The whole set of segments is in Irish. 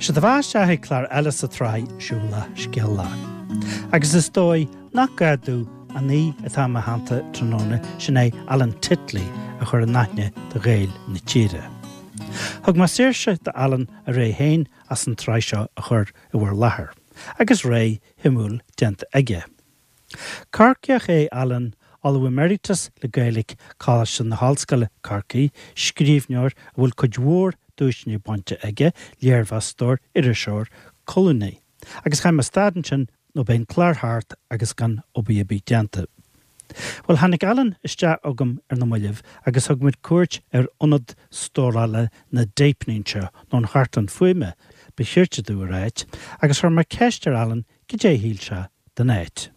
Sé do bheatha isteach ag clár eile sa tsraith Siúlach Scéalach. Agus is dóigh nach gá domh an aoi atá i mo theannta tráthnóna, sin é Alan Titley, a chur in aithne do Ghaeil na tíre. Thug mé saoirse do Alan a rogha féin as an tsraith seo a chur i bhur láthair, agus rogha shuimiúil déanta aige. Corcaíoch é Alan, Ollamh Emeritus le Gaeilge, Coláiste na hOllscoile, Corcaigh, scríbhneoir a bhfuil cuid mhór duaiseanna bainte aige, léirmheastóir, iriseoir, colúnaí. Agus chaithfidh mé stad ansin nó beidh an clár thart agus gan obair ar bith déanta. Bhuel, tháinig Alan isteach chugam ar na mallaibh agus thug muid cuairt ar ionad stórála na dtéipeanna anseo, nó an chartlann fuaime, ba chirte domh a ráit, agus chuir mé ceist ar Alan cad é a shíl sé den áit.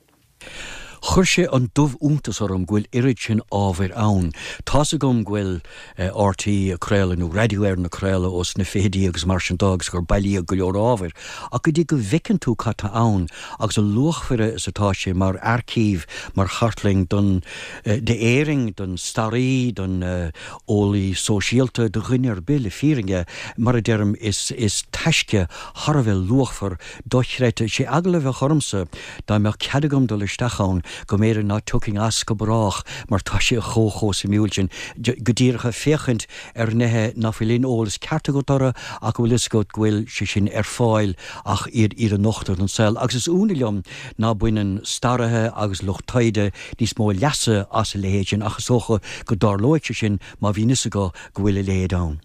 Chuir sé an dubh-iontas orm go bhfuil oiread sin ábhair ann. Tá's agam go bhfuil RTÉ ag craoladh, nó Radio Éireann ag craoladh ós na fichidí agus mar sin de agus gur bailíodh go leor ábhair, ach go dtí go bhfeiceann tú cad tá ann agus a luachmhaire is atá sé mar aircív, mar chartlann don, d'Éirinn, don staraí, don eolaí sóisialta, do dhuine ar bith le fírinne, mar a deirim, is, is taisce thar a bheith luachmhar dochreidte. Sé eagla a bheadh ormsa dá mbeadh cead agam dul isteach ann go mb'fhéidir ná tiocfainn as go brách mar tá sé chomh chomh suimiúil sin go díreach ag féachaint ar nithe ná fuil aon eolas ceart agat orthu ach go bhfuil fhios agat go bhfuil sé sin ar fáil ach iad iad a nochtadh don saol. Agus is ionadh liom ná baineann staraithe agus lucht taighde níos mó leasa as a leithéid sin ach is dócha go dtarlóidh sé sin má bhíonn fhios acu go bhfuil a leithéid ann.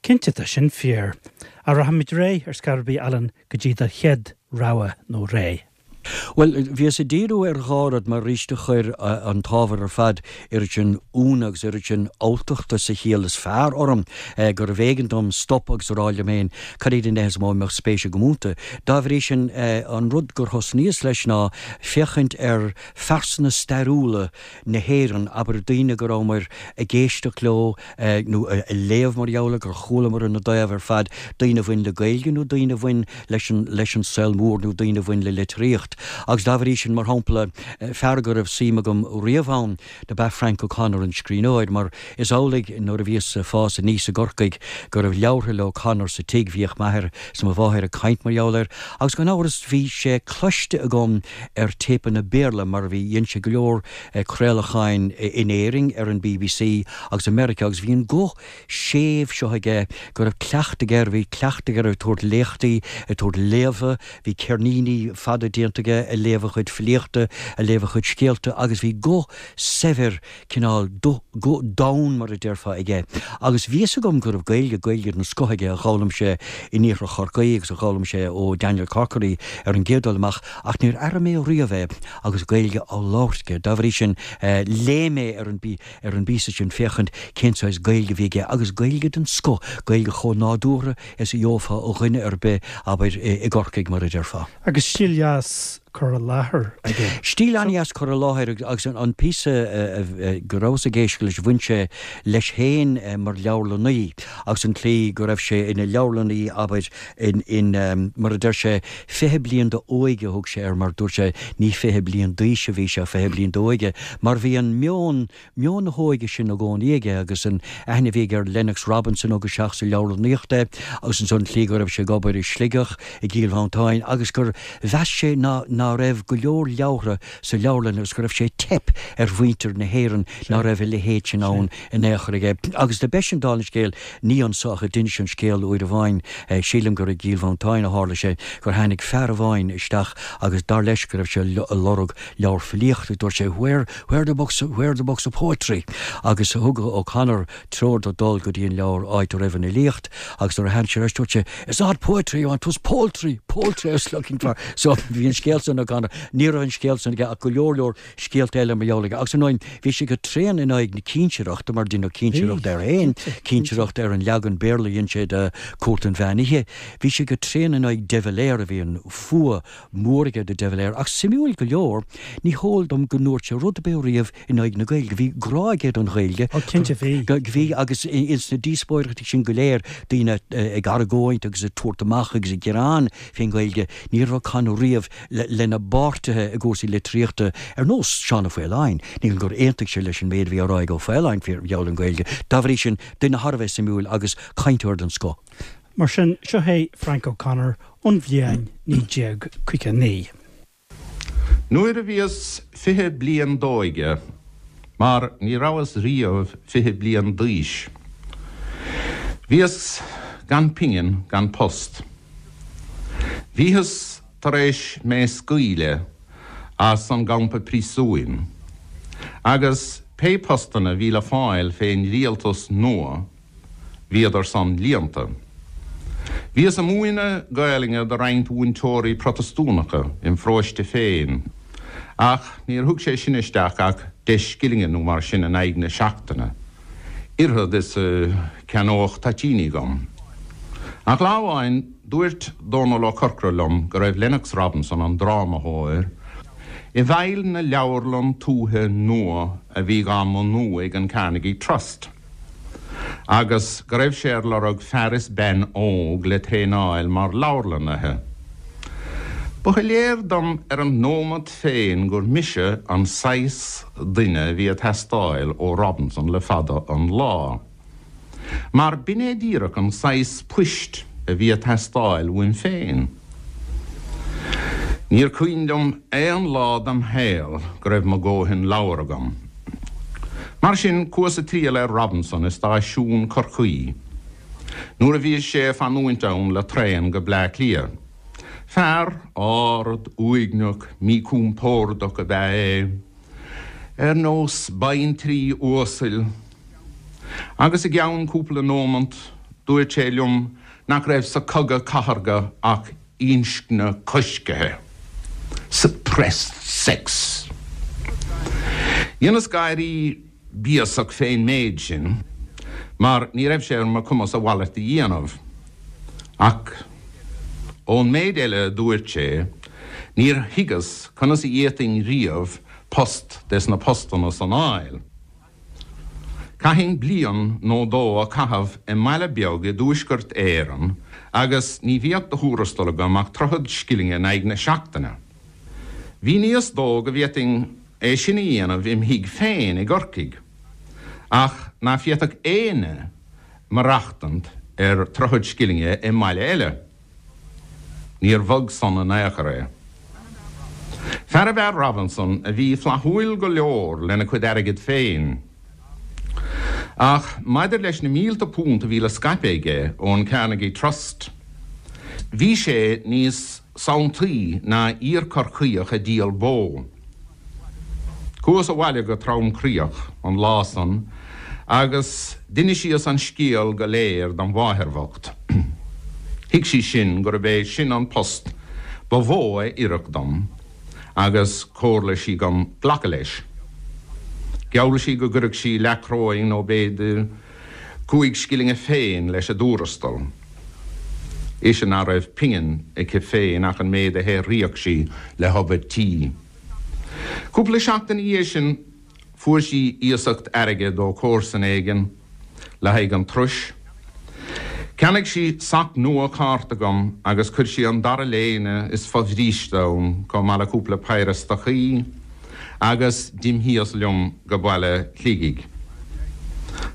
Cinnte, tá sin fíor. Ach rachaimid ar aghaidh ar scor ar bith, Alan, go dtí do chéad rogha nó ré. Bhuel, bhíos ag díriú ar dhá rud mar arís do chuir an t-ábhar ar fad oiread sin ionadh agus oiread sin alltachta sa chiall is fearr orm gurbh éigean dom stop agus a rá liom féin cad iad na nithe is mó a mbeadh spéis agam iontu. Dá bhrí sin, an rud gur thosnaíos leis ná féachaint ar phearsana stairiúla na hÉireann, abair, daoine go rabhamar ag éisteacht leo nó ag léamh mar gheall air, gur chualamar ina dtaobh ar fad, daoine a bhain le Gaeilge nó daoine a bhain leis an, leis an saol mór nó daoine a bhain le litríocht. Agus dá bhrí sin, mar shampla, fear go raibh suim agam riamh ann dob ea Frank O'Connor, an scríbhneoir, mar is amhlaidh nuair a bhíos ag fás aníos i gCorcaigh go raibh leabhartha le O'Connor sa tigh, bhíodh m'athair 's mo mháthair ag caint mar gheall air, agus gan amhras bhí sé cloiste agam ar téipeanna Béarla mar bhí, dhein sé go leor craolacháin in Éirinn ar an bbc agus i Meiriceá agus bhí an guth séimh seo aige go raibh cleachtadh air, bhí cleachtadh air ag tabhairt léachtaí, ag tabhairt léamha, bhí ceirníní fada déanta aige ag léamh a chuid filíochta, ag léamh a chuid scéalta agus bhí guth saibhir cineál guth domhain mar a déarfá aige. Agus bhí fhios agam go raibh Gaeilge, Gaeilge den scoth aige a d'fhoghlaim sé in iarthar Chorcaí agus a d'fhoghlaim sé ó Daniel Corkery ar an gcéad dul amach ach níor airigh mé riamh é agus Gaeilge á labhairt aige. Dá bhrí sin léigh mé ar an ar an bpíosa sin féachaint cén saghas Gaeilge a bhí aige agus Gaeilge den scoth, Gaeilge chomh nádúrtha is a gheofá ó dhuine ar bith, abair, i gCorcaigh mar a déarfá. Agus stíl dheas cur i láthair aige. Stíl an-dheas cur i láthair agus an píosa go rabhas ag éisteacht leis, bhain sé leis féin mar leabharlannaí agus an tslí go raibh sé ina leabharlannaí, abair, in, mar a deir sé, 20 bliain d'óige a thug sé air mar dúirt sé ní 20 bliain d'aois a bhí sé ach 20 bliain d'óige mar bhí an meon, meon na hóige sin i gcónaí aige agus an aithne a bhí aige ar Lennox Robinson a thug isteach sa leabharlannaíocht é agus ansan an tslí go raibh sé ag obair i Sligeach, i gCill Mhantáin agus gur mheas sé ná ná raibh go leor leabhartha sa leabharlann agus go raibh sé ag teip ar mhuintir na hÉireann ná raibh a leithéid sin ann in aon chor aige. Agus do b'eisean dála an scéil, ní anso ach a d'inis an scéal uair amháin, sílim gur i gCill Mhantáin a tharla sé, gur tháinig fear amháin isteach agus dar leis go raibh sé ag lorg leabhar filíochta, dúirt sé where, where the books, where the books of poetry? Agus thug O'Connor treoir dó dul go dtí an leabhar áit a raibh an fhilíocht agus nuair a tháinig sé ar ais dúirt sé it's not poetry you want, 'twas poultry, poultry I was looking for. So bhí an scéal san O'Connor, ní raibh an scéal san aige ach go leor leor scéalta eile mar gheall aige. Agus ar ndóigh bhí sé go tréan in aghaidh na cinsireachta mar deineadh cinsireacht air féin, cinsireacht ar an leagan Béarla a dhein sé de Cúirt an Mheán Oíche. Bhí sé go tréan in aghaidh de Valera, bhí an fuath mór aige do de Valera. Ach suimiúil go leor, ní heol dom go ndúirt sé rud ar bith riamh in aghaidh na Gaeilge. Bhí grá aige don Ghaeilge. Ó, cinnte bhí. Bhí, agus ins na díospóireachtaí sin go léir, daoine ag argóint agus ag tabhairt amach agus ag gearán fén Ghaeilge, ní raibh O'Connor riamh lena bpáirtithe i gcúrsaí litríochta, ar nós Seán Ó Faoláin. Ní gur aontaigh sé leis an méid a bhí á rá ag Ó Faoláin faoi gheall ar an Ghaeilge. Dá bhrí sin, duine thar a bheith suimiúil agus cainteoir den scoth. Mar sin, seo é Frank O'Connor ón bhliain 1959. Nuair a bhíos 20 bliain d'óige, mar ní rabhas riamh 20 bliain d'aois, bhíos gan pingin gan post. Bhíothas tar éis mé scaoileadh as an gcampa príosúin, agus pé postanna bhí le fáil fén rialtas nua, Bhíodar san líonta. Bhíos a múineadh Gaelainne do roinnt mhúinteoirí Protastúnacha im pharóiste féin, ach níor thug sé sin isteach ach deich scillinge nó mar sin in aghaidh na seachtaine, oiread is a cheannódh toitíní dhom. Ach lá amháin dúirt Dónal Ó Corcora liom go raibh Lennox Robinson, an drámathóir, i bhfeighil na leabharlann tuaithe nua a bhí dhá mbunú ag an Carnegie Trust. agus go raibh sé ar lorg fear is bean óg le traenáil mar leabharlannaithe. Ba shoiléir dom ar an nóimeat féin gur mise an saghas duine a bhí ag teastáil ó Robinson le fada an lá. Mar b'in é díreach an saghas poist a bhí ag teastáil uaim féin. Níor cuimhin liom aon lá dem shaol go raibh mo dhóthain leabhar agam. Mar sin, chuas a triall ar Robinson i stáisiún Chorcaí nuair a bhí sé ag fanúint ann le traen go Bleá Cliath. Fear ard, uaigneach, míchompordach ab ea é, ar nós baintrí uasail, agus i gceann cúpla nómant dúirt sé liom nach raibh sa chogadh cathartha ach inscne coiscthe, suppressed sex. Dheineas gáirí béasach fén méid sin, mar ní raibh sé ar mo chumas a mhalairt a dhéanamh. Ach ón méid eile a dúirt sé, níor thuigeas conas a d'fhéadfainn riamh post des na postanna san a fháil. Chaithfinn bliain nó dó a chaitheamh i mbaile beag i dTuaisceart Éireann agus ní bheadh de thuarastal agam ach troichead scillinge in aghaidh na seachtaine. Mhíníos dó go bhféadfainn é sin a dhéanamh im thigh féin i gCorcaigh, ach ná féadfadh éinne maireachtaint ar troichead scillinge i mbaile eile. Níor bhog san in aon chor é. Fear ab ea Robinson a bhí flaithiúil go leor lena chuid airgid féin. Ach maidir leis na mílte punt a bhí le scaipeadh aige ón Carnegie Trust, bhí sé níos sanntaí ná iar-Chorcaíoch ag díol bó. Chuas abhaile go tromchroíoch an lá san agus d'inisíos an scéal go léir dom mháthair bhocht. Thuig sí sin gurb é sin an post ba mhó a oirfeadh dom agus chomhairligh sí dhom glacadh leis. Gheall sí go gcuirfeadh sí leathchoróin nó b'fhéidir chúig scillinge féin leis an dtuarastal. Ise ná raibh pingin aici féin ach an méid a shaothraíodh sí le hobair tí. Cúpla seachtain ina dhiaidh sin fuair sí iasacht airgid ó chomharsan éigin le haghaidh an turais. Cheannaigh sí sac nua cárta dhom agus chuir sí an dara léine is fo-bhríste ann chomh maith le cúpla péire stocaí agus d'imthíos liom go baile Shligigh.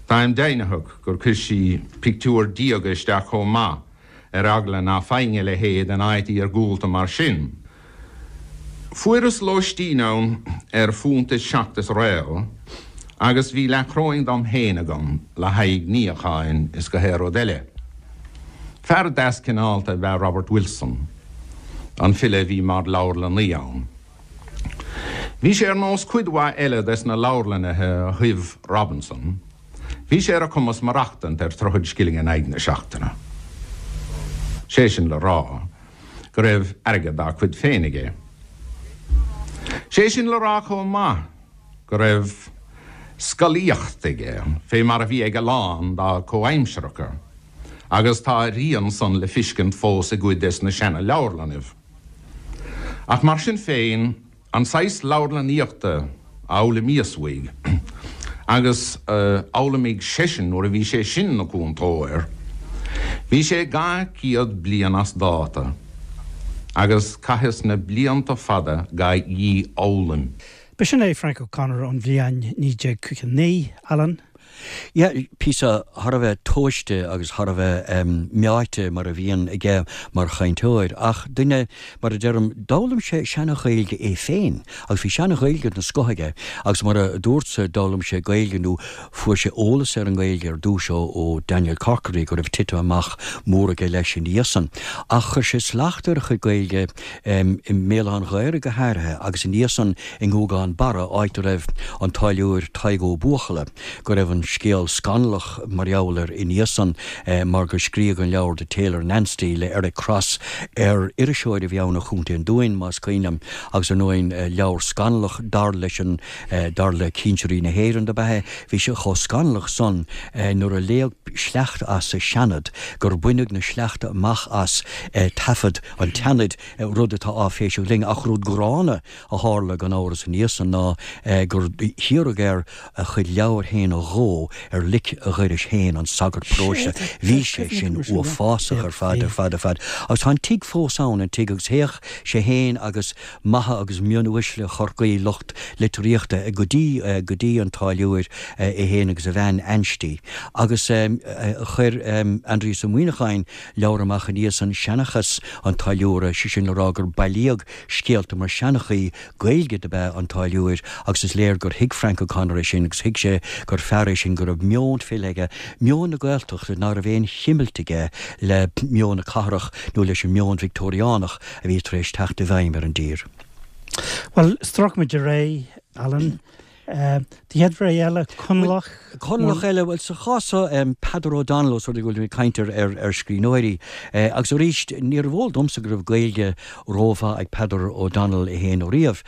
Táim deimhnitheach gur chuir sí pictiúr diaga isteach chomh maith ar eagla ná faighinn a leithéid in áit iargúlta mar sin. Fuaireas lóistín ann ar phunt is seacht is réal agus bhí leathchoróin dom féin agam le haghaidh níocháin is gach aon rud eile. Fear deas cineálta ab ea Robert Wilson, an file a bhí mar leabharlannaí ann. Bhí sé ar nós cuid mhaith eile des na leabharlannaithe a thoibh Robinson, bhí sé ar a chumas maireachtaint ar troichead scilling in aghaidh na seachtaine. Sé sin le rá go raibh airgead dá chuid féin aige. Sé sin le rá chomh maith go raibh scolaíocht aige, fé mar a bhí ag a lán dá chomhaimsearacha, agus tá a rian san le fiscint fós i gcuid des na seana-leabharlannaibh. Ach mar sin féin, an saghas leabharlannaíochta a fhoghlaimíos uaidh, agus a d'fhoghlaimigh seisean nuair a bhí sé sin 'na chúntóir, bhí sé 200 bliain as dáta, agus chaitheas na blianta fada dhá dhífhoghlaim. B'shin é Frank O'Connor ón bhliain 1959, Alan. Yeah, píosa thar a bheith tomhaiste agus thar a bheith meáite mar a bhíonn aige mar chainteoir, ach duine, mar a deirim, d'fhoghlaim sé seana-Ghaeilge é féin agus bhí seana-Ghaeilge den scoth aige agus mar a dúrtsa d'fhoghlaim sé Gaeilge nó fuair sé eolas ar an nGaeilge ar dtús ó ó Daniel Corkery go raibh titim amach mór aige leis ina dhiaidh san. Ach chuir sé slacht ar a chuid Gaeilge i mBéal Átha an Ghaorthaidh go háirithe agus ina dhiaidh san i nGúgán Barra, áit a raibh an táilliúir Tadhg Ó Buachalla, go raibh an scéal scannalach mar gheall air ina dhiaidh san mar gur scríodh an leabhar The Tailor in Ansty le Eric Cross ar iriseoir a bhí ann ó Chontae an Dúin, más cuimhin liom, agus ar ndóigh leabhar scannalach dar leis an dar le cinsirí na hÉireann dob ea é. Bhí sé chomh scannalach san nuair a léadh sleachta as sa Seanad gur baineadh na sleachta amach as taifead an tSeanaid, rud atá áiféiseach linn, ach rud gránna a tharla gan amhras ina dhiaidh san ná gur hiarradh air a chuid leabhar féin a dhó ar lic a dhoiris féin, an sagart paróiste. Bhí sé sin uafásach ar fad, ar fad, ar fad. Agus tá an tigh fós ann, an tigh, agus théadh sé féin agus maithe agus mionuaisle Chorcaí, lucht litríochta, go dtí, go dtí an táilliúir, é féin agus a bhean Anstí. Agus chuir Aindrias Ó Muíneacháin leabhar amach ina dhiaidh san, Seanchas an Táilliúra, sé sin le rá gur bailíodh scéalta mar seanchaí Gaeilge dob ea an táilliúir agus is léir gur thuig Frank O'Connor é sin agus thuig sé gur fear é sin go raibh meon file aige, meon na Gaeltachta ná raibh aon chimilt aige le meon na cathrach nó leis an meon Victeoiriánach a bhí tar éis teacht i bhfeidhm ar an dtír. Bhuel, stróicfimid ar aghaidh, Alan. Do chéad rogha eile, Conallach. Conallach eile, bhuel, sa chás seo, Peadar O'Donnell, os rud é go bhfuil muid ag caint ar scríbhneoirí. Agus arís, níorbh eol domsa go raibh Gaeilge rómhaith ag Peadar O'Donnell é féin ariamh.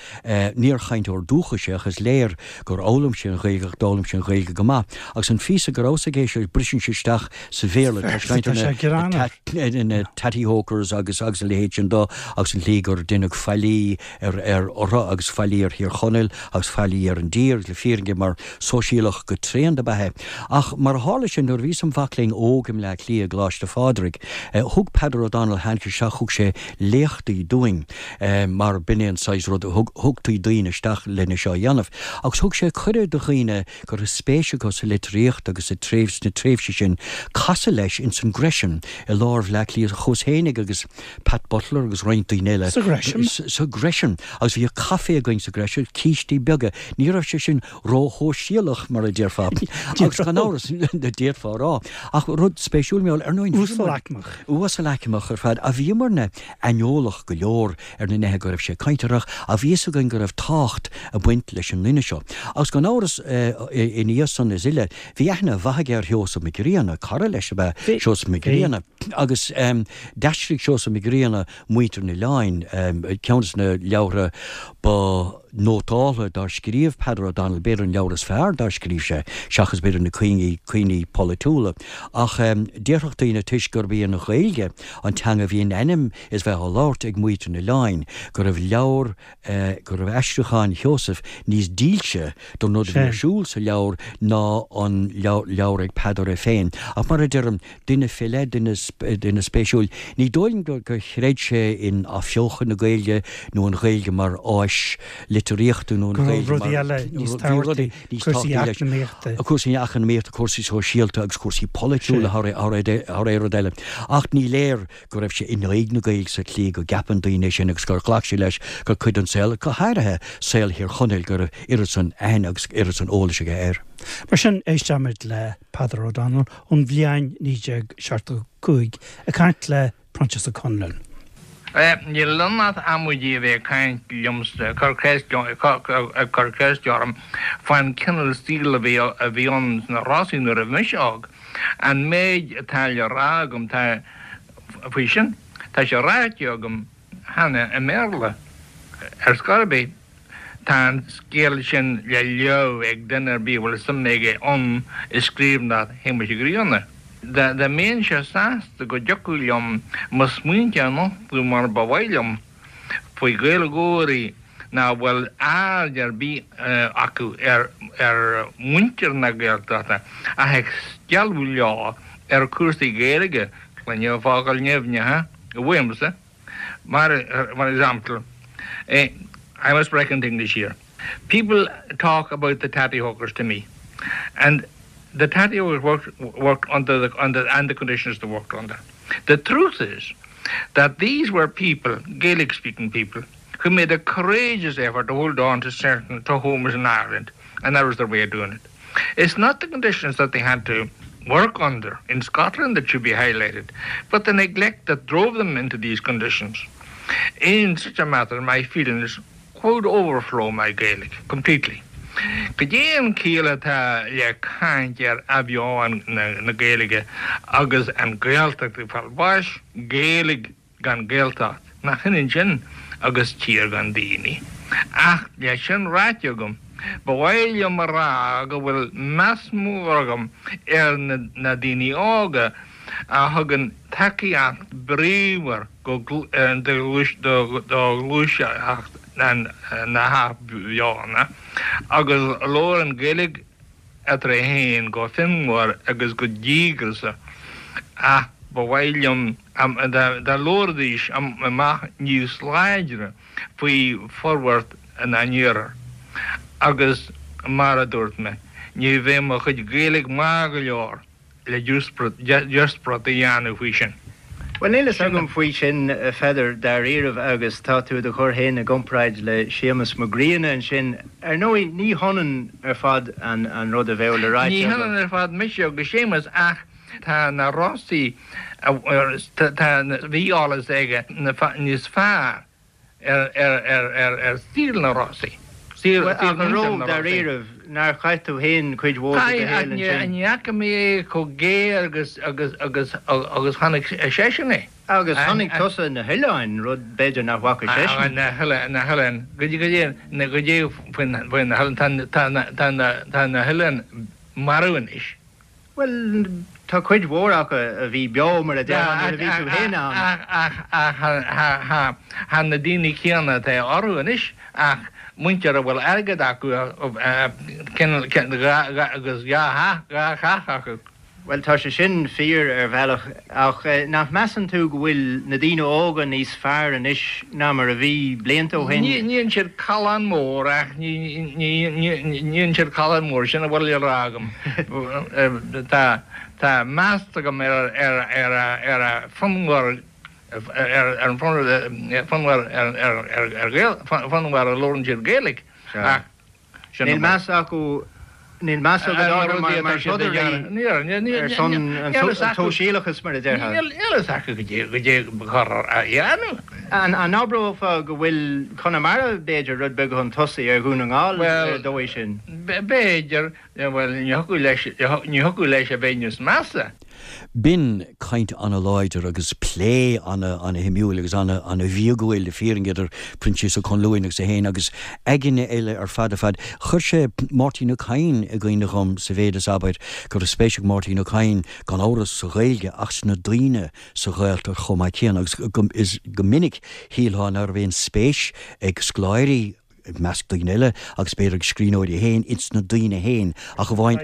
Níor chainteoir dúchais é ach is léir gur fhoghlaim sé an Ghaeilge ach d'fhoghlaim sé an Ghaeilge go maith. Agus an phíosa go rabhas ag éisteacht leis, briseann sé isteach sa Bhéarla, tá sé ag caint ar na tatty hokers agus agus a leithéid sin do agus an tslí gur deineadh faillí ar ar orthu agus faillí ar Thír Chonaill agus faillí ar an dtír, le fírinne, mar sóisialach go tréan dob ea é. Ach mar a tharla sé, nuair a bhíos im mhac léinn óg i mBleá Cliath i gColáiste Phádraig, thug Peadar O'Donnell, tháinig sé isteach, thug sé léachtaí dúinn, mar b'in é an saghas rud, thug, thugtaí daoine isteach lena seo a dhéanamh. Agus thug sé cuireadh do dhaoine go raibh spéis acu sa litríocht agus sa tréimhse, sna tréimhsí sin, casadh leis ins an Gresham i lár Bhleá Cliath, chuas fhéinig agus Pat Butler agus roinnt daoine eile. Sa Ghresham? Sa Gresham. Agus bhíodh caife againn sa Gresham, cístí beaga. Ní raibh sé sin ró-shóisialach, mar a déarfá. Agus gan amhras, d'fhéadfá a rá. Ach rud spéisiúil, mar ar ndóigh, Uasalaicmeach. Uasalaicmeach ar fad. Ach bhíomarna aineolach go leor ar na nithe go raibh sé ag caint orthu, ach bhí fhios againn go raibh tábhacht ag baint leis an nduine seo. Agus gan amhras, ina dhiaidh san is uile, bhí aithne mhaith aige ar Sheosamh Mac Grianna, cara leis ab ea Seosamh Mac Grianna. Agus d'aistrigh Seosamh Mac Grianna Muintir an Oileáin, ceann de na leabhartha ba nótáltha dár scríobh Peadar O'Donnell, b'fhéidir an leabhar is fearr dár scríobh sé, seachas b'fhéidir na cuimhní polaitiúla. Ach déarfadh daoine, toisc gurb í an Ghaeilge an teanga a bhí in ainm is bheith á labhairt ag muintir an oileáin, go raibh leabhar, go raibh aistriúchán Sheosaimh níos dílse don rud a bhí ar siúl sa leabhar ná an leabhar ag Peadar é féin. Ach mar a deirim, duine fé leith, duine, duine spéisiúil. Ní dóigh liom gur chreid sé in athbheochan na Gaeilge nó an Ghaeilge mar áis litríochta nó an Ghaeilge mar. Rudaí eile níos tábhachtaí, cúrsaí eacnamaíochta. Cúrsaí eacnamaíochta, cúrsaí sóisialta agus cúrsaí polaitiúla thar aon rud eile. Ach ní léir go raibh sé in aghaidh na Gaeilge sa tslí go gceapann daoine é sin agus gur ghlac sé leis gur cuid den saol, go háirithe saol Thír Chonaill, go raibh oiread san aithne agus oiread san eolais aige air. Mar sin, éistfimid le Peadar O'Donnell ón bhliain 1975 ag caint le Proinsias Ó Conluain. Níl ann ach amaidí a bheith ag caint liomsa, ag cur ceiste orm fán cineál saoil a bhí ann sna Rosaí nuair a bhí mise óg. An méid atá le rá agam tá faoi sin, tá sé ráite agam cheana i mBéarla. Ar scor ar bith, tá an scéal sin le léamh ag duine ar bith a bhfuil suim aige ann i scríbhneoireacht Shéamuis Uí Ghrianna. Dá mbeinnse sásta go dtiocfadh liom mo smaointe a nochtadh mar ba mhaith liom faoi Ghaeilgeoirí nach bhfuil aird ar bith acu ar mhuintir na Gaeltachta ach ag stealladh leo ar chúrsaí Gaeilge, cluinim focail nimhneacha uaimse, mar mar example, I must break into English here. People talk about the tatty hokers to me and. The tattie was worked, worked under the, under, and the conditions they worked under. The truth is that these were people, Gaelic-speaking people, who made a courageous effort to hold on to certain to homes in Ireland, and that was their way of doing it. It's not the conditions that they had to work under in Scotland that should be highlighted, but the neglect that drove them into these conditions. In such a matter, my feelings could overflow my Gaelic completely. Cad é an chiall atá le caint ar athbheochan na Gaeilge agus an Ghaeltacht ag fáil bháis? Gaeilge gan Gaeltacht, nach ionann sin agus tír gan daoine? Ach le sin ráite agam, ba mhaith liom a rá go bhfuil meas mór agam ar na daoine óga a thugann tacaíocht bríomhar do ghluaiseacht na hathbheochana agus labhrann Gaeilge eatarthu féin go fonnmhar agus go díograiseach ach ba mhaith liom dá labhróidís amach níos láidre faoi forbairt na n-iarthar agus mar a dúirt mé, ní bheidh mo chuid Gaeilge maith go leor. le díospóireacht a dhéanamh faoi sin. Bhuel, níl fhios agam faoi sin, a Pheadair, dáiríribh, agus tá tú i do chur féin i gcomparáid le Séamus Mac Grianna ansin. Ar ndóigh, ní hionann ar fad an rud a bheadh le ráite Ní hionann ar fad mise agus Séamus ach tá na Rosaí, tá, bhí eolas aige níos fearr ar saol na Rosaí. Bhuel, ach an raibh, dáiríribh, nár chaith tú féin cuid mhór de do shaol ansin? Ní fhaca mé é chomh géar agus agus agus agus chonaic seisean é. Agus chonaic tusa na hoileáin, rud b'fhéidir nach bhfaca seisean. Na hoileáin, na hoileáin, goidé, goidé faoi na hoileáin, tá na, tá na, tá na hoileáin marbh anois. Bhuel, tá cuid mhór acu a bhí beo, mar a déarfá, nuair a bhí tú féin ann. Ach, ach, ach, tá na daoine céanna atá orthu anois, ach muintir a bhfuil airgead acu, agus dhá theach acu. Bhuel, tá sé sin fíor ar bhealach, ach nach measann tú go bhfuil na daoine óga níos fearr anois ná mar a bhí blianta ó shin? Ní dhéanann siad callán mór ach ní dhéanann siad callán mór, sin a bhfuil le rá agam. Tá tá meas agam ar ar ar ar a fonnmhar ar an fonnmhar ar ar ar Ghael fonnmhar a labhrann siad Gaeilge ach Níl meas acu, níl meas agat orthu mar throdairí ar son an tsóisialachais, mar a déarfá. Níl a fhios acu goidé ba chóir a dhéanamh. An abrófá go bhfuil Conamara, b'fhéidir, rud beag chun tosaigh ar Dhún na nGall ar an dóigh sin? B'fhéidir. Bhuel, ní thiocfadh leis, ní thiocfadh leis a bheith níos measa. B'in caint ana-láidir agus plé ana-shuimiúil agus ana-bhíogúil le fírinne idir Proinsias Ó Conluain agus é féin agus againne eile ar fad ar fad. Chuir sé Máirtín Ó Cadhain i gcuimhne dhom sa mhéid is, abair, go raibh spéis ag Máirtín Ó Cadhain, gan amhras, sa Ghaeilge ach sna daoine sa Ghaeltacht chomh maith céanna agus is go minic shílfeá ná raibh aon spéis ag scoláirí i measc daoine eile, agus b'fhéidir ag scríbhneoirí féin, ins na daoine féin, ach amháin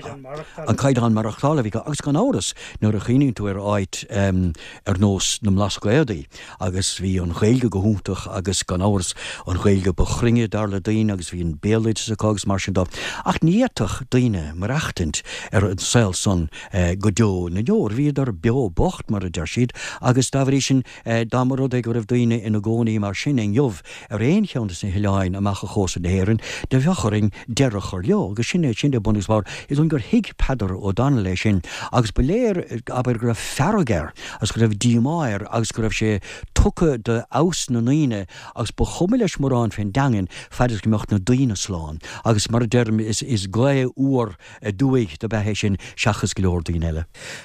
an caighdeán maireachtála a bhí acu. Agus gan amhras, nuair a chuimhníonn tú ar áit ar nós na mBlascaodaí, agus bhí an Ghaeilge go hiontach agus gan amhras an Ghaeilge ba chruinne dar le daoine agus bhí an béaloideas acu agus mar sin de. Ach ní fhéadfadh daoine maireachtaint ar an saol san go deo na ndeor. Bhíodar beo bocht, mar a deir siad, agus dá bhrí sin, Dá mba rud é go raibh daoine ina gcónaí mar sin inniu ar aon cheann de na hoileáin amach ó chósta na hÉireann, do bheadh orainn deireadh a chur leo. Agus sin é, sin é bun agus barr. Is dóigh gur thuig Peadar O'Donnell é sin agus ba léir, abair, go raibh fearg air agus go raibh díomá air agus go raibh sé tugtha do fheabhas na ndaoine agus ba chuma leis mórán fén dteangain fad is go mbeadh na daoine slán. Agus mar a deirim, is, is gaoth fhuar aduaidh dob ea é sin seachas go leor daoine eile.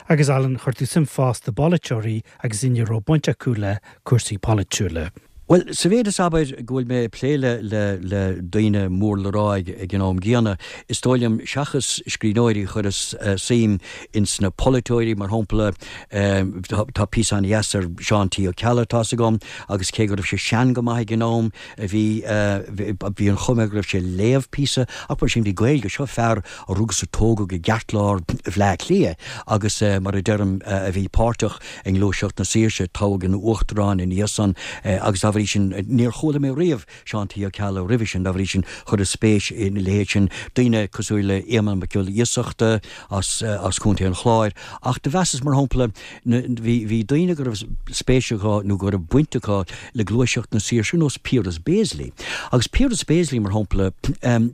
Agus Alan, chuir tú suim fosta i bpolaiteoirí agus daoine a raibh baint acu le cúrsaí polaitiúla. Bhuel, sa mhéid is, abair, go bhfuil mé ag plé le le le daoine mór le rá ag ag an am gcéanna, is dóigh liom, seachas scríbhneoirí, chuireas suim ins na polaiteoirí, mar shampla, tá tá píosa an-dheas ar Seán T. Ó Ceallaigh, tá's agam, agus cé go raibh sé sean go maith ag an am, bhí bhí an chuma air go raibh sé ag léamh píosa, ach mar sin bhí Gaeilge, seo fear a rugadh is a tógadh i gceartlár Bhleá Cliath agus, mar a deirim, a bhí páirteach i nGluaiseacht na Saoirse, toghadh ina uachtarán ina dhiaidh san agus dá bhrí. bhrí sin, níor chuala mé riamh Seán T. Ó Ceallaigh roimhe sin, dá bhrí sin, chuireas spéis ina leithéid sin, daoine cosúil le Éamonn Mac Giolla Iasachta as as Contae an Chláir. Ach do mheasas, mar shampla, na, bhí, bhí daoine go raibh spéis acu nó go raibh baint acu le gluaiseacht na saoirse, ar nós Piaras Béaslaí. Agus Piaras Béaslaí, mar shampla,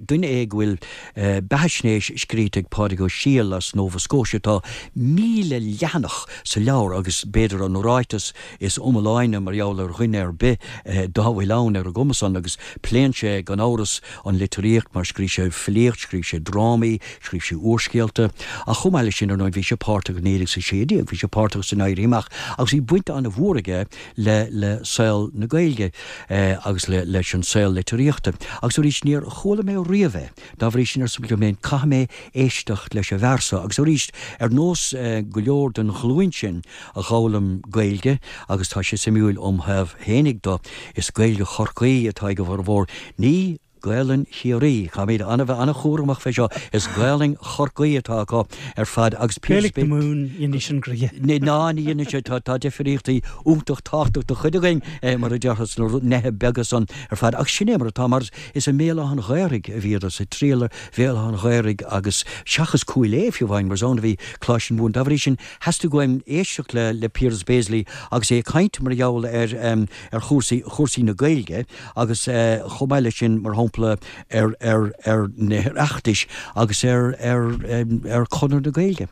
duine é go bhfuil beathaisnéis scríte ag Pádraig Ó Siadhail as Nova Scotia, tá 1,000 leathanach sa leabhar agus b'fhéidir an ráiteas is iomláine mar gheall ar dhuine ar bith dá bhfuil ann ar an gcuma san agus pléann sé gan amhras an litríocht mar scríobh sé filíocht, scríobh sé drámaí, scríobh sé úrscéalta ach chomh maith leis sin ar ndóigh bhí sé páirteach i 1916, bhí sé páirteach san Éirí Amach agus bhí baint an-mhór aige le le saol na Gaeilge agus le leis an saol litríochta agus arís níor chuala mé riamh é. Dá bhrí sin, arsa liom féin, caithfidh mé éisteacht leis an bhfear so. Agus arís, ar nós go leor den ghlúin sin a dh'fhoghlaim Gaeilge, agus tá sé suimiúil óm thaobh fhéinig do, is Gaeilge Chorcaí atá ag a bhformhór, ní Gaelainn Chiarraí. Caithfimid an-bheith an-chúramach fé seo, is Gaelainn Chorcaí atá acu ar fad agus Gaeilge na Mumhan, dhéanfaidh sin gnoithe. Ná, ní dhéanfaidh sé, tá difríochtaí iontach tábhachtach do chuid againn, mar a déarfá, sna neithe beaga san ar fad. Ach sin é mar atá, mar Is i mBéal Átha an Ghaorthaidh a bhíodar ag triall ar Bhéal Átha an Ghaorthaidh agus seachas Cúil Aodha fiú amháin mar is ann a bhí Coláiste na Mumhan. Dá bhrí sin theastaigh uaim éisteacht le le Piaras Béaslaí agus é ag caint mar gheall ar ar chúrsaí chúrsaí na Gaeilge agus chomh maith leis sin mar shampla ar ar ar na hOireachtais agus ar ar ar Chonradh na Gaeilge.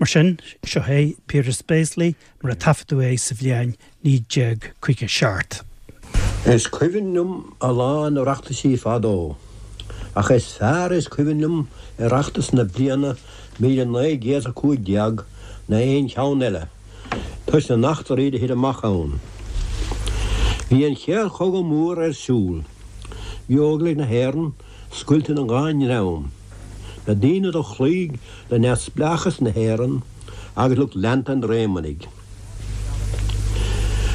Mar sin, seo é Piaras Béaslaí mar a taifeadadh é sa bhliain 1957. Is cuimhin liom a lán Oireachtaisí fadó, ach is fearr is cuimhin liom Oireachtas na bliana 1915 ná aon cheann eile, toisc na n-eachtraí do thit amach ann. Bhí an Chéad Chogadh Mór ar siúl. Bhí Óglaigh na hÉireann scoilte ina dhá ndream, na daoine do chloígh le neamhspleáchas na hÉireann agus lucht leanta an Réamonnaigh.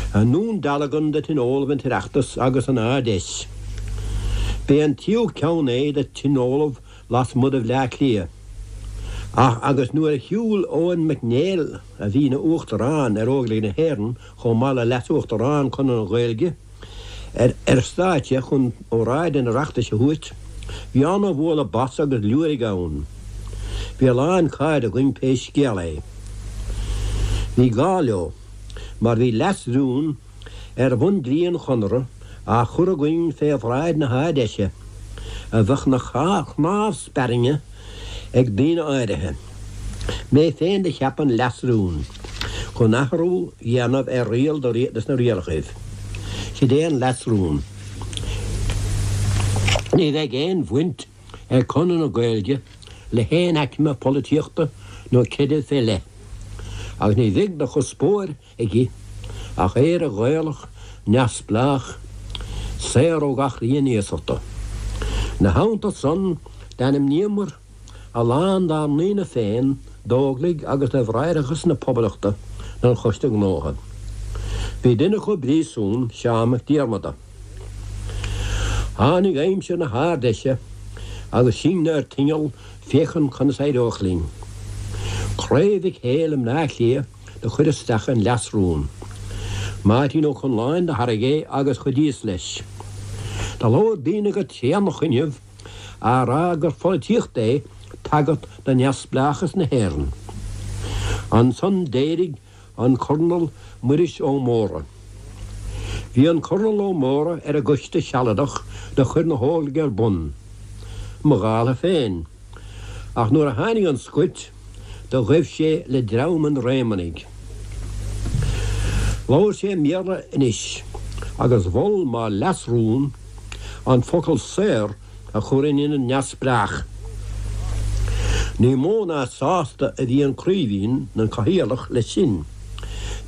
I nDún Dealgan do tionóladh an tOireachtas agus an Ard-Fheis. B'é an tríú ceann é do tionóladh lasmuigh de Bhleá Cliath. Ach agus nuair a shiúil Eoin Mac Néill, a bhí ina Uachtarán ar Óglaigh na hÉireann chomh maith le Leas-Uachtarán Chonradh na Gaeilge, ar stáitse chun óráid an Oireachtais a thabhairt, bhí ana-bhualadh bos agus liúirigh ann. Bhí a lán cairde againn pé scéal é. Bhí gá leo, mar bhí leas-rún ar bhun-dlí an Chonartha á chur againn fé bhráid na hArd-Fheise, a bheadh 'na chnámh spairne ag daoine áirithe. Mé féin do cheap an leas-rún chun athrú dhéanamh ar riail de sna rialachaibh. Sid é an leas-rún. Ní bheidh aon bhaint ag Conradh na Gaeilge le haon aicme polaitíochta nó creidimh fé leith, agus ní bheidh de chuspóir aici ach Éire Ghaelach neamhspleách, saor ó gach rian iasachta. 'Na theannta san, d'ainmníomar a lán dár ndaoine féin d'Óglaigh agus do Bhráithreachas na Poblachta don Choiste Gnótha. Bhí duine acu i bpríosún, Seán Mac Diarmada. Tháinig aimsir na hArd-Fheise agus sinne ar tinneall féachaint conas éireodh linn. Craobh Mhic Héil i mBleá Cliath do chuir isteach an leas-rún. Máirtín Ó Conláin do thairg é agus chuidíos leis. Do labhair daoine go tréanach inniu á rá gur pholaitíocht é tagairt do neamhspleáchas na hÉireann. Ansan d'éirigh an Cornal Muiris Ó Mórdha. Bhí an Cornal Ó Mórdha ar an gcoiste sealadach do chuir na hÓglaigh ar bun, mo dhála féin, ach nuair a tháinig an scoilt do ghaibh sé le dream an Réamonnaigh. Labhair sé i mBéarla anois agus mhol mo leas-rún an focal saor a chur in ionad neamhspleách. Ní mó ná sásta a bhí an Craoibhín, an Cathaoirleach, leis sin.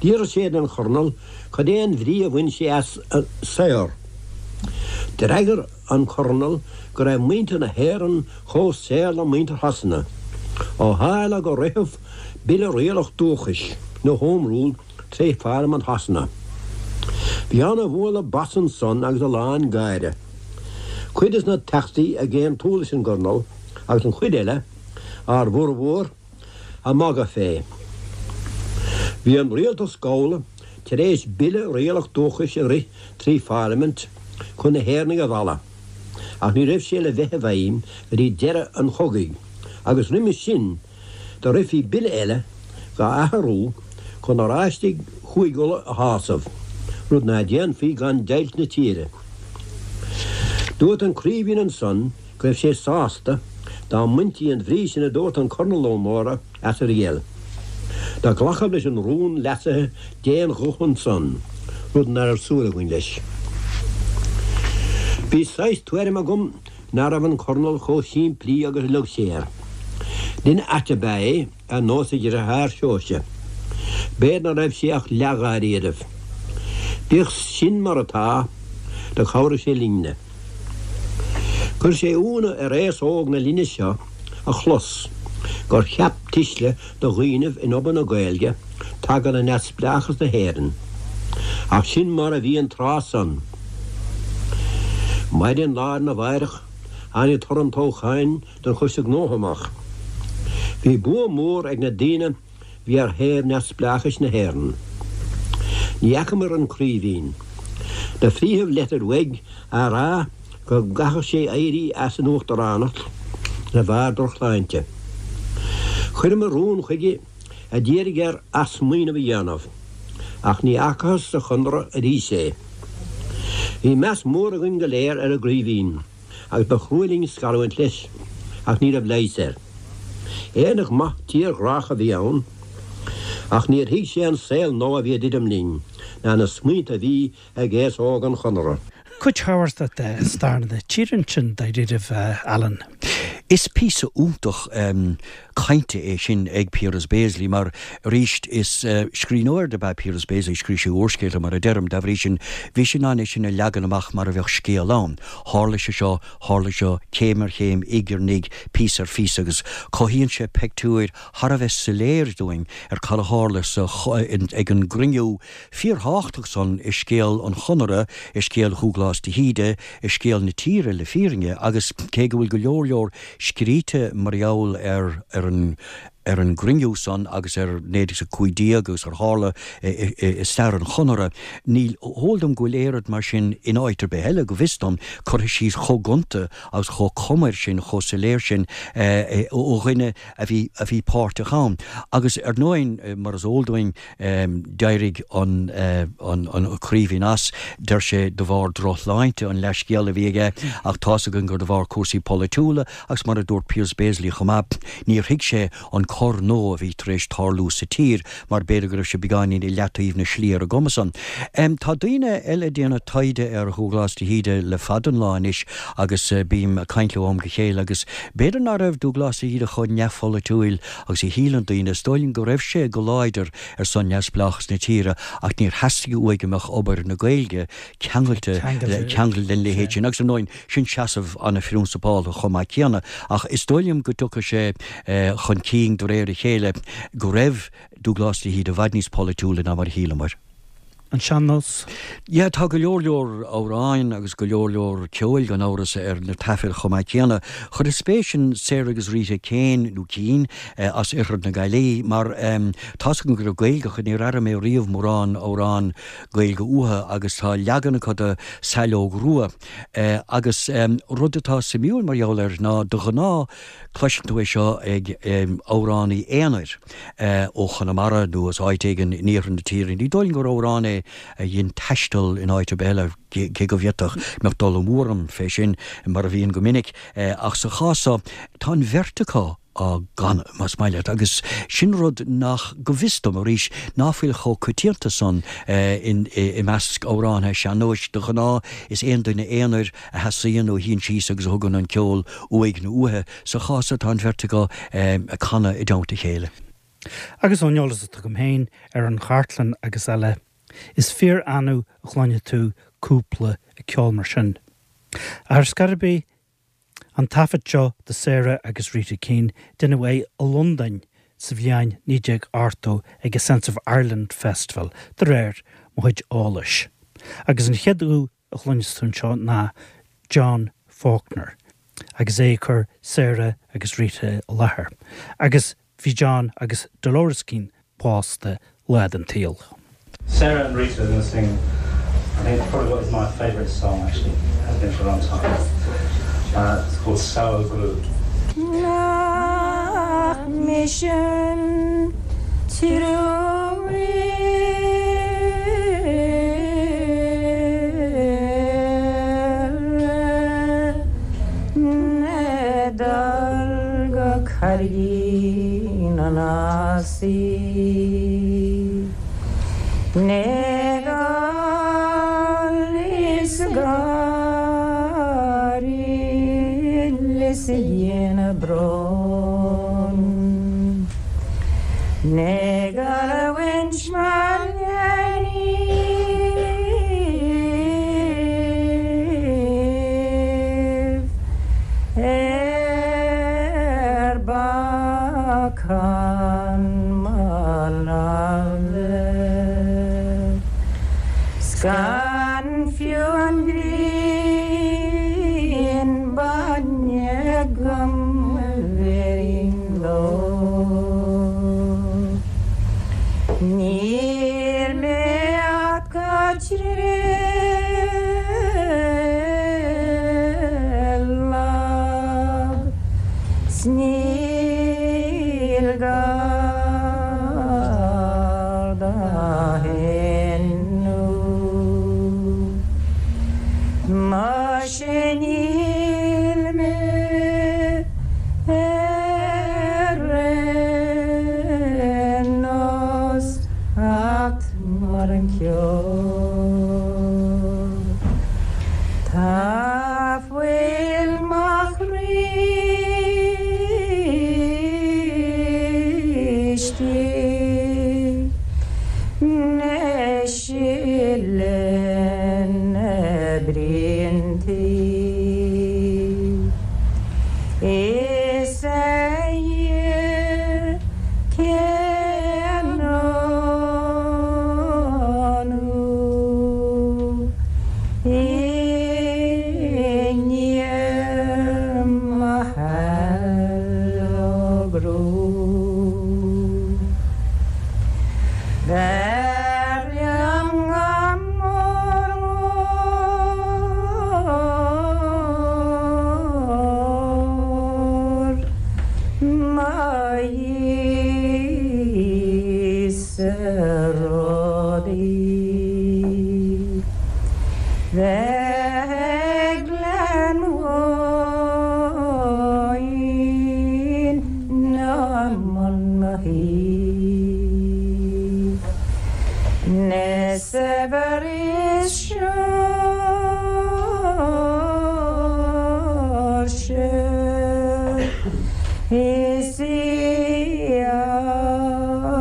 D'fhiafraigh sé den Chornal cad é an bhrí a bhain sé as saor. D'fhreagair an Cornal go raibh muintir na hÉireann chomh saor le muintir Shasana, ó tharla gur ritheadh Bille Rialach Dúchais, nó Home Rule, tré Pharlaimint Shasana. Bhí ana-bhualadh bas ansan agus a lán gáire. Cuid des na Teachtaí ag aontú leis an gCornal agus an chuid eile, ár bhformhór, ag magadh fé. Bhí an rialtas gabhála. tar éis Bille Rialach Dúchais a rith trí Pharlaimint chun na hÉireannaigh a mhealladh, ach ní raibh sé le bheith i bhfeidhm go dtí deireadh an chogaidh, agus roimis sin do rithfí bille eile dhá athrú chun Oráistigh Chúig Uladh a shásamh, rud ná déanfaí gan deighilt na tíre. Dúirt an Craoibhín ansan go raibh sé sásta dá mbaintí an bhrí sin a dúirt an Cornal Ó Mórdha as a riail. Do glacadh leis an rún leasaithe d'aon ghuth ansan, rud ná raibh súil againn leis. Bhí saghas tuairim agam ná raibh an Cornal chomh simplí agus a leag sé air. Duine ait ab ea é, ar nós a dhriotháir Seoirse. B'fhéidir ná raibh sé ach leath-dháiríribh. Bíodh sin mar atá, do chabhraigh sé linne. Chuir sé iúnadh ar aos óg na linne seo a chlos gur cheap tuisle de dhaoinibh in obair na Gaeilge taca le neamhspleáchas na hÉireann. Ach sin mar a bhí an tráth san. Maidin lá arna mháireach tháinig toradh an toghcháin don Choiste Gnótha amach. Bhí bua mór ag na daoine bhí ar thaobh neamhspleáchais na hÉireann. Ní fheacamair an Craoibhín. Do frítheadh leitir uaidh á rá go gcaithfeadh sé éirí as an uachtaránacht de bharr drochshláinte. Chuireamair rún chuige a d'iarraidh air athsmaoineamh a dhéanamh, ach ní fhacathas sa Chonradh arís é. Bhí meas mór againn go léir ar an gCraoibhín agus ba chrua linn scarúint leis, ach ní raibh leigheas air. Éireannach maith tírghrách a bhí ann, ach níor thuig sé an saol nua a bhí ag druidim linn, ná na smaointe a bhí ag aos óg an Chonartha. Cuid thábhachtach de stair na tíre ansin, dáiríribh, Alan. Is píosa iontach cainte é sin ag Piaras Béaslaí mar, arís, is scríbhneoir dob ea Piaras Béaslaí, scríobh sé úrscéalta, mar a deirim, dá bhrí sin, bhí sé in ann é sin a leagan amach mar a bheadh scéal ann. Tharla sé seo, tharla seo, céim ar chéim, ig ar ndíg, píosa ar phíosa agus cothaíonn sé peictiúir thar a bheith soiléir dúinn ar cad a tharla sa, ag an gcruinniú fíorthábhachtach san i scéal an Chonartha, i scéal Dhúghlás de hÍde, i scéal na tíre le fírinne, agus cé go bhfuil go leor leor scríte mar gheall ar ar an ar an gcruinniú san agus ar 1915 agus ar tharla i stair an Chonartha, ní heol dom go bhfuil oiread mar sin in áit ar bith eile, go bhfios dom, curtha síos chomh gonta agus chomh comair sin, chomh soiléir sin ó dhuine a bhí a bhí páirteach ann. Agus ar ndóigh, mar is eol dúinn, D'éirigh an Craoibhín as, deir sé, de bharr drochshláinte, an leathscéal a bhí aige, ach tá's againn gur de bharr cúrsaí polaitiúla agus mar a dúirt Piaras Béaslaí chomh maith, níor thuig sé an cor nua a bhí tar éis tarlú sa tír mar b'fhéidir go raibh sé beagáinín i leataobh na slí ar an gcuma san. Tá daoine eile ag déanamh taighde ar Dhúghlás de hÍde le fada an lá anois agus bím ag caint leo ó am go chéile agus b'fhéidir ná raibh Dúghlás de hÍde chomh neamhpholaitiúil Agus a shíleann daoine, is dóigh liom go raibh sé go láidir ar son neamhspleáchas na tíre ach níor theastaigh uaidh go mbeadh obair na Gaeilge ceangailte ceangailte lena leithéid sin. Agus ar ndóigh, sin seasamh an-phrionsapálta chomh maith céanna. Ach is dóigh liom go dtiocfaidh sé chun cinn de réir a chéile go raibh Dúghlás de hÍde i bhfad níos polaitiúla ná mar a shíleamar. An sean-nós? Yeah, tá go leor leor amhráin agus go leor leor ceoil gan amhras ar na taifid chomh maith céanna. Chuireas spéis in Sarah agus Rita Kane, nó Keane, as oirthear na Gaillimhe mar tá's agam go raibh Gaeilge acu, níor airigh mé riamh mórán amhrán Gaeilge uathu agus tá leagan acu de Saileog Rua. Agus rud atá suimiúil mar gheall air ná de ghnáth Cloiseann tú é seo ag amhránaí aonair ó Chonamara nó as áit éigin in iarthar na tíre. Ní dóigh liom gur amhrán é a dhein taisteal in áit ar bith eile, cé go bhféadfadh, mbeadh dul amú orm fé sin, mar a bhíonn go minic. Ach sa chás seo, tá an bheirt acu á gcanadh, más maith leat, agus sin rud nach, go bhfios dom, arís, ná fuil chomh coitianta san i measc amhránaithe sean-nóis. De ghnáth, is aon duine aonair a sheasaíonn nó a shuíonn síos agus a thugann an ceol uaidh nó uaithi. Sa chás seo tá an bheirt acu ag canadh i dteannta a chéile. Agus ón eolas atá agam féin ar an chartlann agus eile, is fíor-annamh a chluinfidh tú cúpla ag ceol mar sin. Ach ar scor ar bith, an taifead seo de Sarah agus Rita Keane, deineadh é i Londain sa bhliain 1980 ag a Sense of Ireland Festival, de réir mo chuid eolais. Agus an chéad ghuth a chluinfeas tú anseo ná John Faulkner agus é ag cur Sarah agus Rita i láthair. Agus bhí John agus Dolores Keane pósta lá den tsaol. Sarah and Rita are going to sing I think probably what is my favourite song actually has been for a long time. Uh, it's called Sour Glue. Nach mise an triúr Le dul go Carraigín an Ásaigh Le gol is gáire is a dhéanamh bróin. Le gol a bhaint mar léiníbh ar bacán mo láimhe 's gan fiú an ghrian bainne agam a bhéarfainn leo. Níl mé ach go trialach 's níl gar do shéanadh. Muise níl mé ar aon nós acht mar an ceo. Tá fuil mo chroí istigh 'na sileadh na braontaí. Is a Dhia cén ionadh i ndiaidh mo allogrú. B'fhearr liom go mór mór mo dhíth-sa rudaí bheith ag Gleann Bháin ná i mbun mo thí. Na saibhir is seoirse is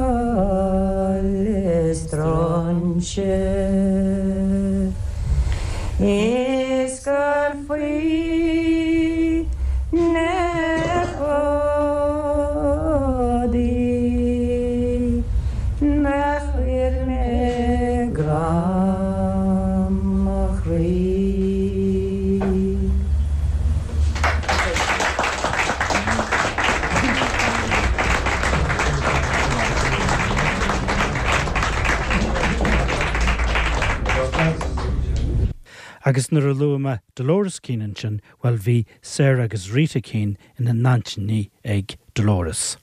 iall is tróinse is gur faoi na fódaí nach chuir mé grá mo chroí. Agus nuair a luaigh mé Dolores Keane ansin, bhuel bhí Sarah agus Rita Keane ina n-aintíní ag Dolores.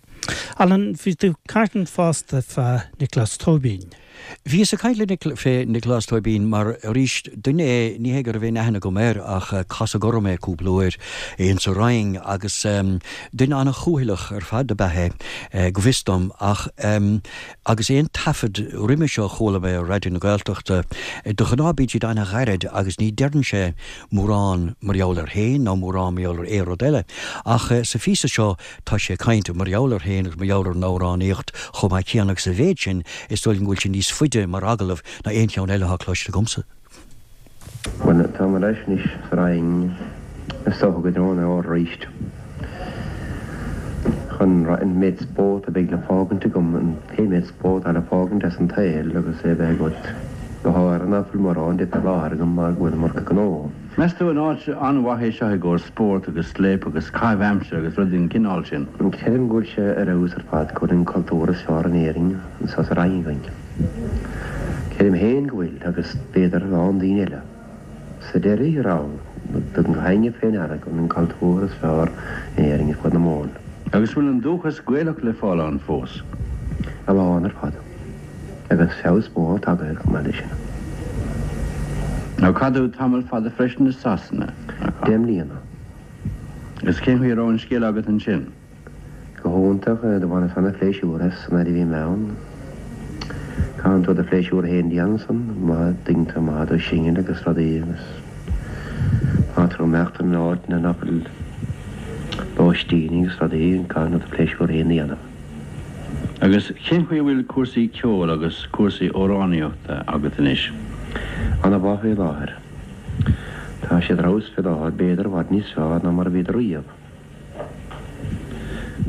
Alan, bhí tú ag caint fosta fá Nioclás Tóibín. Bhíos ag caint le Nic, fé Nioclás Tóibín mar, arís, duine é, ní hé go raibh aon aithne agam air ach casadh orm é cúpla uair insa Rinn agus duine ana-chúthaileach ar fad ab ea é, go bhfios dom, ach agus aon taifead roimhe seo a chuala mé ar Raidió na Gaeltachta, de ghnáth bíonn siad ana-ghairid agus ní deireann sé mórán mar gheall air féin ná mórán mar gheall ar aon rud eile. Ach sa phíosa seo tá sé ag caint mar gheall air féin agus mar gheall ar an amhránaíocht chomh maith céanna agus sa mhéid sin is dóigh liom go bhfuil sé níos faide mar agallamh ná aon cheann eile atá cloiste agamsa. Bhuel, táim ar ais anois sa Rinn, is dócha go dtreo an fhómhair arís, chun an méid spórt a bheidh le fágaint agam, an pé méid spórt atá le fágaint as an tsaol agus é a bheith agat, go háirithe ná fuil mórán de fé láthair agam mar go bhfuil an iomarca gnó. Meas tú an áit an-mhaith é seo i gcomhair spórt agus scléip agus caitheamh aimsire agus rudaí den chineál sin? Creidim go bhfuil sé ar fheabhas ar fad, go bhfuil an cultúr is fearr in Éirinn anseo sa Rinn againn. Creidim féin go bhfuil, agus b'fhéidir a lán daoine eile. Sa deireadh thiar thall, tugann gach éinne fé ndeara gurb in an cultúr is fearr in Éirinn ar fud na Mumhan. Agus bhfuil an dúchas Gaelach le fáil ann fós? A lán ar fad. Agus feabhas mór tagtha air chomh maith leis sin. Now chaith tú tamall fada freisin i Sasana, nach ea? 10 mbliana. Agus cén chaoi a raibh an scéal agat ansin? Go hiontach, do bhaineas ana-phléisiúr as san fhaid a bhí mé ann. Caitheann tú do phléisiúr féin a dhéanamh ansan, má tuigeann tú, má tá tú singil agus rudaí agus má tá tú ag imeacht in áit ina nach bhfuil lóistín agus rudaí, caitheann tú do phléisiúr féin a dhéanamh. Agus cén chaoi a bhfuil cúrsaí ceoil agus cúrsaí amhránaíochta agat anois? Ana-mhaith fé láthair. Tá siad ar fheabhas fé láthair, b'fhéidir i bhfad níos fearr ná mar a bhíodar riamh.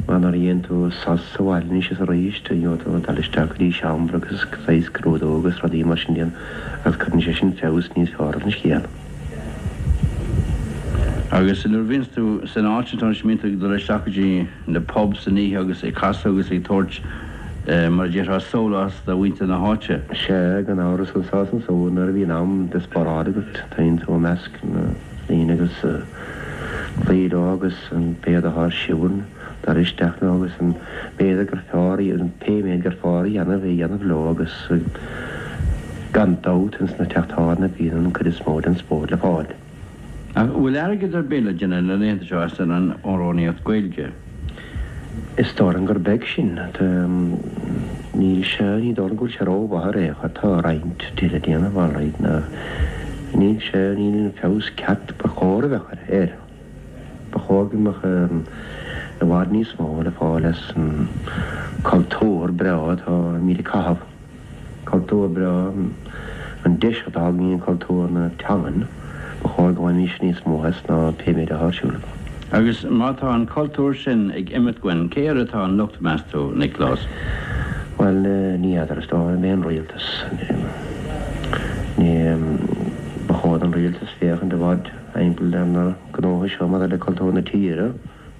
Mar nuair a dhéanann tú sos sa bhaile anois is arís, gheobhaidh tú dul isteach go dtí seomra agus saghas scrúdú agus rudaí mar sin a dhéanamh agus cuireann sé sin feabhas níos fearr ar an scéal. Agus nuair a bhíonns tú san áit sin, anois, mbíonn tú ag dul isteach go dtí na pubs san oíche agus ag casadh agus ag tabhairt, mar a déarfá, sólás do mhuintir na háite? Sea, gan amhras anso is ansúd nuair a bhíonn am de sparáid agat, téann tú i measc na ndaoine agus. cloí leo agus an méid atá ar siúl, dul isteach leo agus an méid gur fearr, pé méid gur fearr a dhéanamh, é a dhéanamh leo agus gan dabht ins na teach tábhairne bíonn an cuid is mó den spórt le fáil. Ach bhfuil airgead ar bith le déanamh na laethanta seo as an amhránaíocht Gaeilge? Is dóigh liom gur beag sin. Níl sé, ní dóigh liom go bhfuil sé rómhaith ar aon chor. Tá roinnt le déanamh alright ach níl sé, níl an feabhas ceart ba chóir a bheadh air. Ba chóir go mbeadh i bhfad níos mó le fáil as an cultúr breá atáimid ag caitheamh. Cultúr breá, an deis atá againn cultúr na teangan, ba chóir go mbainfimis níos mó as ná pé méid atá ar siúl. Agus má tá an cultúr sin ag imeacht uainn, cé air atá an locht, meas tú, Nioclás? Bhuel, ní fheadar, is dóigh liom é an rialtas. Ní, ba chóir don rialtas féachaint i bhfad thimpeall ar na gnóthaí seo maidir le cultúr na tíre.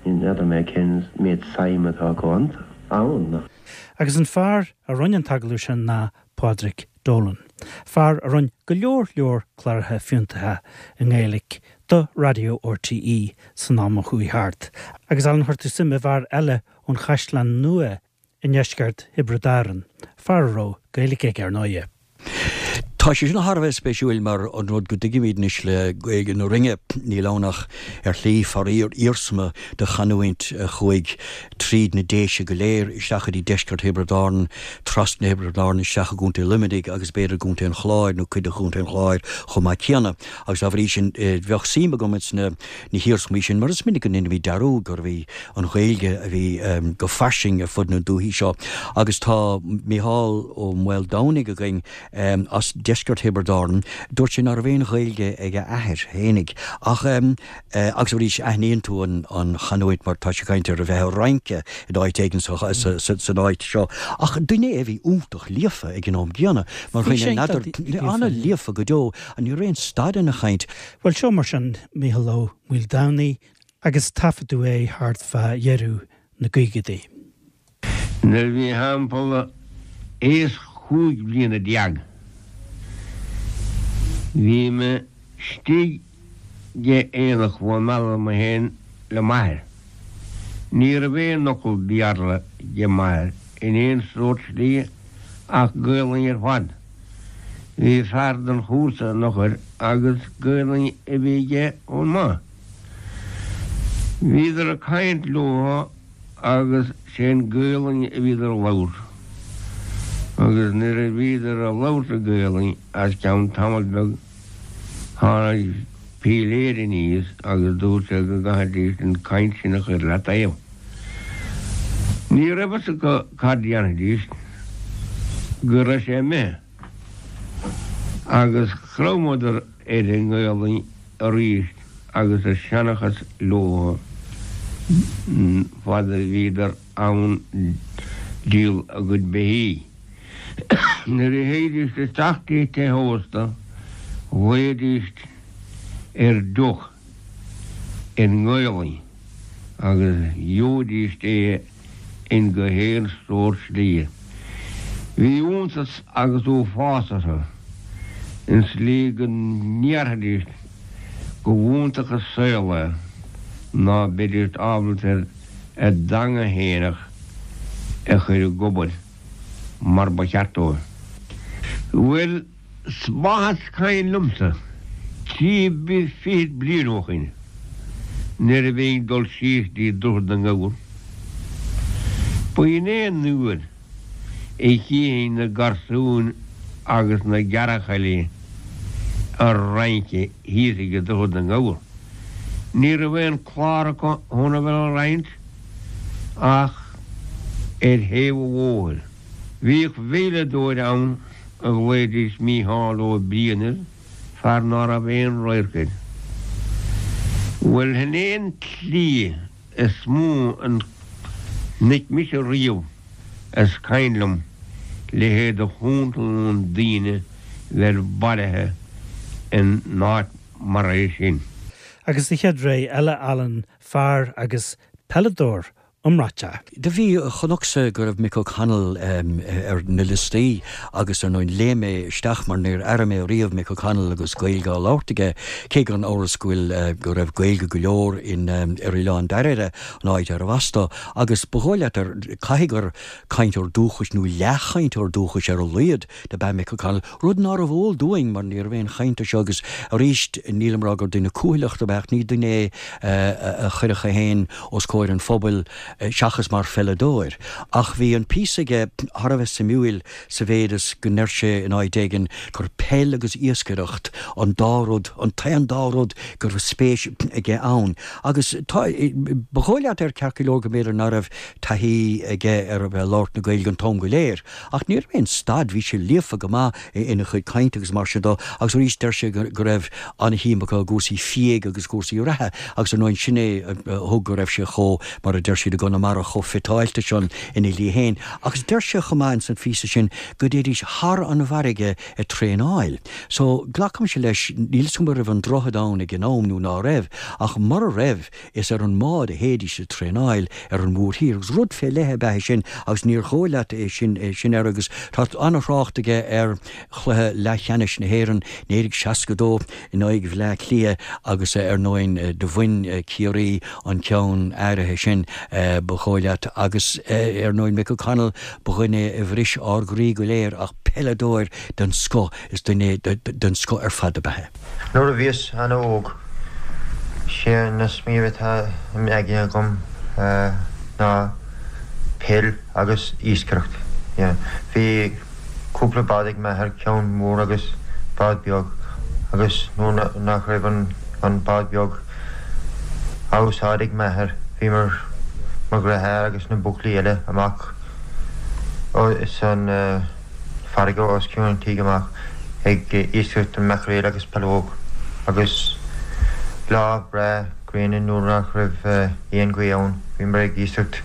Ní fheadar mé cén méid suim atá acu ann. Agus an fear a rinne an t-agallamh sin ná Pádraig Dolan, fear a rinne go leor leor cláracha fiúntacha i nGaeilge do Raidió RTÉ san am a chuaigh thart. Agus Alan, chuir tú suim i bhfear eile ón Chaisleán Nua i ndeisceart Thiobraid Árann, fear a raibh Gaeilge aige ar ndóighe. Tá sé sin thar a bheith spéisiúil mar an rud go dtuigimid anois le Gaeilge na Rinne, níl ann ach ar shlí faraor iarsma de chanúint a chuaigh tríd na Déise go léir isteach go dtí deisceart Thiobraid Árann, trasna Thiobraid Árann isteach i gContae Luimnigh agus b'fhéidir i gContae an Chláir nó cuid de Chontae an Chláir chomh maith céanna. Agus dá bhrí sin bheadh suim agam ins na hiarsmaí sin mar is minic go ndéanaimid dearúd gurbh í an Ghaeilge a bhí go fairsing ar fud na dúichí seo agus tá Mícheál Ó Maoldomhnaigh againn as deisceart Thiobraid Árann. Dúirt sé ná raibh aon Ghaeilge ag a athair fhéinig ach agus arís aithníonn tú an chanúint mar tá sé ag caint ar a bheith ag rince in áit éigin san áit seo ach duine é a bhí iontach líofa ag an am gcéanna mar dhuine ana-líofa go deo ní raibh aon stad ina chaint. Bhuel seo mar sin Mícheál Ó Maoldomhnaigh agus taifeadadh é thart fá dheireadh na gcaogaidí. Nuair a bhí thimpeall aois chúig bliana déag bhí mé istigh ag aonach Mhaigh Meala mé féin le m'athair. Ní raibh aon fhocal Béarla ag m'athair in aon sórt slí ach Gaelainn ar fad. Bhí fear den chúrsa an eochair agus Gaelainn a bhí aige chomh maith. Bhíodar ag caint leo agus sé'n Gaelainn a bhíodar a labhairt. Agus nuair a bhíodar a labhairt i Gaelainn as ceann tamall beag tháinig píléir aníos agus dúirt sé go gcaithfidís an caint sin a chur le taobh. Ní raibh fhios acu cad dhéanfaidís go raibh sé imithe agus chromadar ar an nGaelainn arís agus a seanchas leo fad a bhíodar ann díol a gcuid beithígh. Nuair a théidís isteach dtí tithe ósta ghlaoidís ar deoch i nGaelainn agus gheobhaidís é in go haon sórt slí. Bhí iontas agus uafás orthu, an tslí go ndéarfaidís go bh'iontach an saol é ná beidís ábalta ar a dteanga fhéineach a chur ag obair mar ba cheart dóibh. Bhuel, 's maith is cuimhin liomsa, trí fichid bliain ó shoin, nuair a bhínn ag dul síos dtí Droichead na nGabhar, ba in é an uair a chífinn na garsúin agus na gearrchailí ag rince thíos ag Droichead na nGabhar. Ní raibh aon clár acu chun a bheith ag rince ach ar thaobh an bhóthair. Bhíodh veidhleadóir ann a ghlaoidís Mícheál Ó Briain air, fear ná raibh aon radharc air. Bhuel, shin é an tslí is mó a chonaic mise riamh is cuimhin liom leithéid de chúntalún daoine bheith bailithe in áit mar é sin. Agus sa chéad ré eile, Alan, fear agus peileadóir iomráiteach. Do bhí, chonacsa go raibh Mick O'Connell ar na liostaí agus ar ndóigh léim mé isteach mar níor airigh mé riamh Mick O'Connell agus Gaeilge á labhairt aige, cé gan amhras go bhfuil, go raibh Gaeilge go leor in, ar Oileán Dairbhre, an áit arbh as dó, agus ba dhóigh leat ar, caithfidh gur cainteoir dúchais nó leathchainteoir dúchais ar a laghad dob ea Mick O'Connell, rud nárbh eol dúinn mar ní raibh aon chaint air seo agus arís nílim ag rá gur duine cúthaileach dob ea ach ní duine é a chuirfeadh é féin os comhair an phobail seachas mar pheileadóir. Ach bhí an píosa aige thar a bheith suimiúil sa mhéid is go ndeir sé in áit éigin gur peil agus iascaireacht an dá rud, an t-aon dá rud go raibh spéis aige ann. Agus tá, ba dhóigh leat air ceart go leor go mb'fhéidir ná raibh taithí aige ar a bheith ag labhairt na Gaeilge an t-am go léir. Ach ní raibh aon stad, bhí sé líofa go maith ina chuid cainte agus mar sin dó agus arís deir sé go raibh an-shuim acu i gcúrsaí fiaigh agus cúrsaí reatha agus ar ndóigh sin é a thug go raibh sé chomh, mar a deir siad i gConamara, chomh fiteáilte san ina shlí féin. Agus deir sé chomh maith ins an phíosa sin go dtéidís thar an bhfarraige ag traenáil. So, glacaimse leis, níl 'fhios agam an raibh an droichead ann ag an am nó ná raibh, ach mura raibh, Is ar an mbád a théidís ag traenáil ar an mhórthír agus rud fé leith ab ea é sin agus níor dhóigh leat é sin é sin air agus tá an-thrácht aige ar chluiche leathcheannais na hÉireann 1962 in aghaidh Bhleá Cliath agus ar ndóigh do bhain Ciarraí an ceann áirithe sin ba dhóigh leat agus ar ndóigh Mick O'Connell ba dhuine é a bhris ár gcroí go léir ach peileadóir den scoth is duine den scoth ar fad ab ea é. Nuair a bhíos ana-óg, sé na smaoineamh atá im aigne agam ná peil agus iascaireacht. Bhí cúpla bád ag m'athair, ceann mór agus bád beag, agus nuair nach raibh an bád beag á úsáid ag m'athair, bhíomar, mo dheartháir agus na buachaillí eile, amach san. farraige os cionn an tígh amach ag iascaireacht an maicréil agus peallóg agus lá breá gréine nuair nach raibh aon ghaoth ann bhíomar ag iascaireacht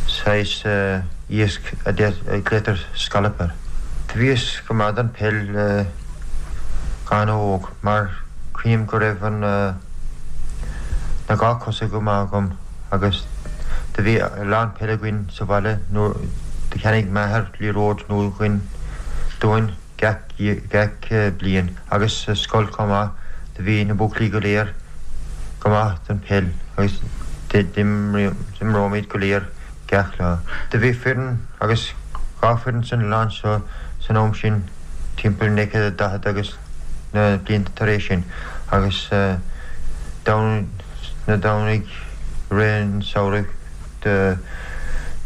saghas iasc a glaotar scallop air. Do bhíos go maith don peil ana-óg mar cuimhním go raibh an na dhá cosa go maith agam agus do bhí a lán peile againn sa bhaile nuair do cheannaigh m'athair liathróid nua dhuinn dúinn gach gach bliain agus sa scoil chomh maith do bhí na buachaillí go léir go maith don peil agus d'imreoimid go léir gach lá. Do bhí foireann agus dha foireann san oileán seo san am sin timpeall 1940 agus na blianta tar éis sin agus na Domhnaigh i rith an samhraidh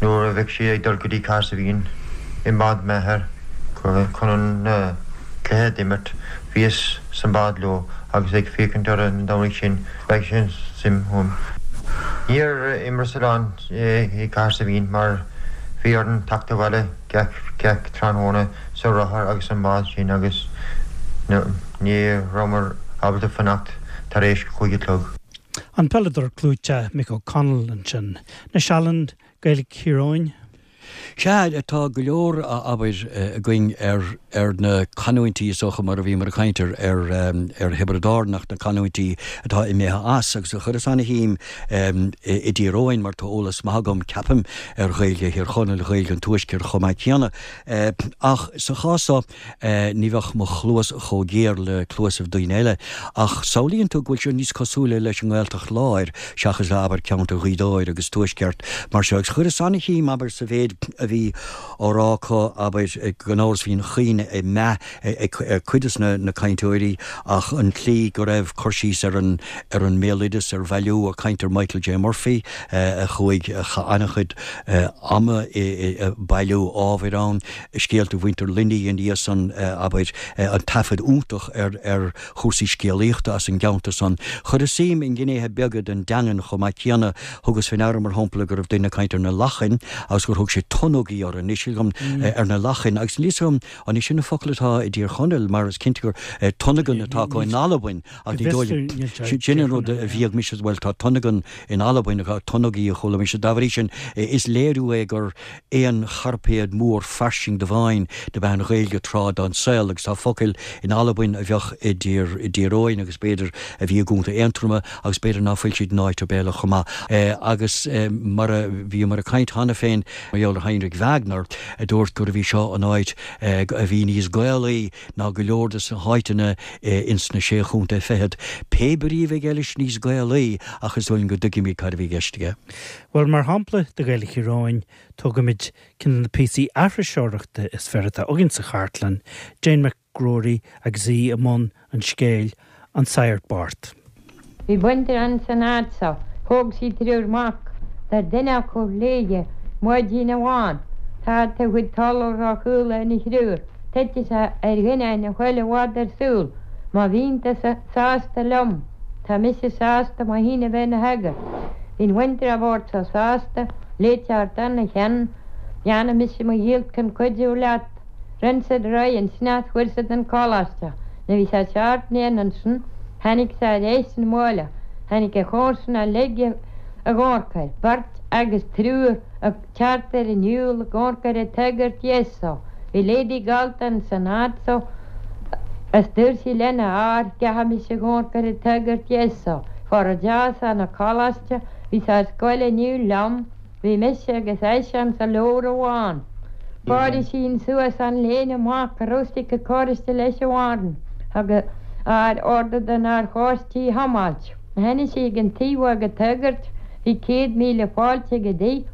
nuair a bheadh siad ag dul go dtí Cahersiveen i mbád m'athar chun an cluiche d'imirt bhíos sa mbád leo agus ag féachaint orthu na Domhnaigh sin spreag sin suim ionam. Níor imreas a lán i Cahersiveen mar bhí orainn teacht abhaile gach gach tráthnóna sa rothar agus an mbád sin agus ní rabhamar ábalta fanacht tar éis chúig a chlog. An peileadóir clúiteach Mick O'Connell ansin. Anois Alan, Gaeilge Thír Eoghain. Sea, tá go leor, abair, againn ar ar na canúintí, is dócha, mar a bhíomar ag caint ar ar ar Thiobraid Árann ach na canúintí atá imithe as agus chuireas ana-shuim i dTír Eoghain mar tá eolas maith agam, ceapaim, ar Ghaeilge Thír Chonaill, Ghaeilge an Tuaiscirt chomh maith céanna. Ach sa chás seo, Ní bheadh mo chluas chomh géar le cluasaibh daoine eile, ach samhlaíonn tú go bhfuil sé níos cosúla leis an nGaeltacht Láir seachas le, abair, ceantar Ghaoth Dobhair agus Tuaisceart mar seo. Agus chuireas ana-shuim, abair, sa mhéid a bhí á rá acu, abair, gan amhras bhí an chuimhne ag meath ag cuid de na cainteoirí ach an tslí go raibh cur síos ar an ar an mbéaloideas, ar bhailiú, ag caint ar Michael J. Murphy a chuaigh, a chaith an-chuid ama ag bailiú ábhair ann. scéalta mhuintir Luinnigh ina dhiaidh san, abair, an taifead iontach ar ar chúrsaí scéalaíochta as an gceantar san. Chuireas suim i ngnéithe beaga den dteangain chomh maith céanna. Thugas fé ndeara, mar shampla, go raibh duine ag caint ar na lachain agus gur thug sé tonnogaí orthu, anois agam ar na lachain agus níl 'fhios agam an é sin an focal atá i dTír Chonaill mar is cinnte gur tonnagan atá acu in Albain ach ní dóigh liom, sin an rud a bhíodh mise, bhuel tá tonnagan in Albain, tonnogaí a chuala mise. Dá bhrí sin is léiriú é gur aon chairpéad mór fairsing de mheáin dob ea an Ghaeilge tráth den saol agus tá focail in Albain a bheadh i dTír Eoghain agus b'fhéidir a bhí i gContae Aontroma agus b'fhéidir ná fuil siad in áit ar bith eile chomh maith. Agus mar a bhíomar ag caint cheana féin mar gheall ar Heinrich Wagner a dúirt gurbh í seo an áit a bhí níos Gaelaí ná go leor de na háiteanna ins na Sé Chontae Fichead. Pé brí a bhí aige leis níos Gaelaí ach is dóigh liom go dtuigimid cad a bhí i gceist aige. Bhuel, mar shampla de Ghaeilge Thír Eoghain, tógfaimid ceann de na píosaí aithriseoireachta is fearr atá againn sa chartlann, Jane McGrory agus í i mbun an scéil An Saghart Bocht. Bhí baintreach ann san áit so. Thóg sí triúr mac. Dúirt duine acu léithe maidin amháin, Tá do chuid talamh ró-chúla ina thriúr. Titfidh sé ar dhuine na chuile mhada ar siúl. Má bhíonn tusa sásta liom, tá mise sásta mo shéan a bheith ina shagart. Bhí an bhaintreach bhocht so sásta, léite thart ana cheann, dhéanfaidh mise mo dhícheall chun cuidiú leat. Rinn siad réidh ansin as fuair siad an coláiste. Nuair bhí sé seacht mbliana ansin, tháinig sé ar ais 'na bhaile. Tháinig a chomharsana uilig ag amharc air, beirt agus triúr ag teacht ar an shiúl ag amharc ar an tsagart dheas so. Bhí lady galánta ins an áit so is dúirt sí lena fhear, gcaithfidh mise amharc ar an tsagart dheas so. Fuair a deas ana coláiste, bhí sé ar scoil inniu liom, bhí mise agus eisean sa leabhar amháin. Fuair sí suas an léine amach go raibh sí ag cóiste leis an bhfearn. Thug a fhear ordú don fhear chóiste í a thiomáilt. Tháinig sí ag an taobh ag an tsagart, bhí 100,000 fáilte ag an dtigh.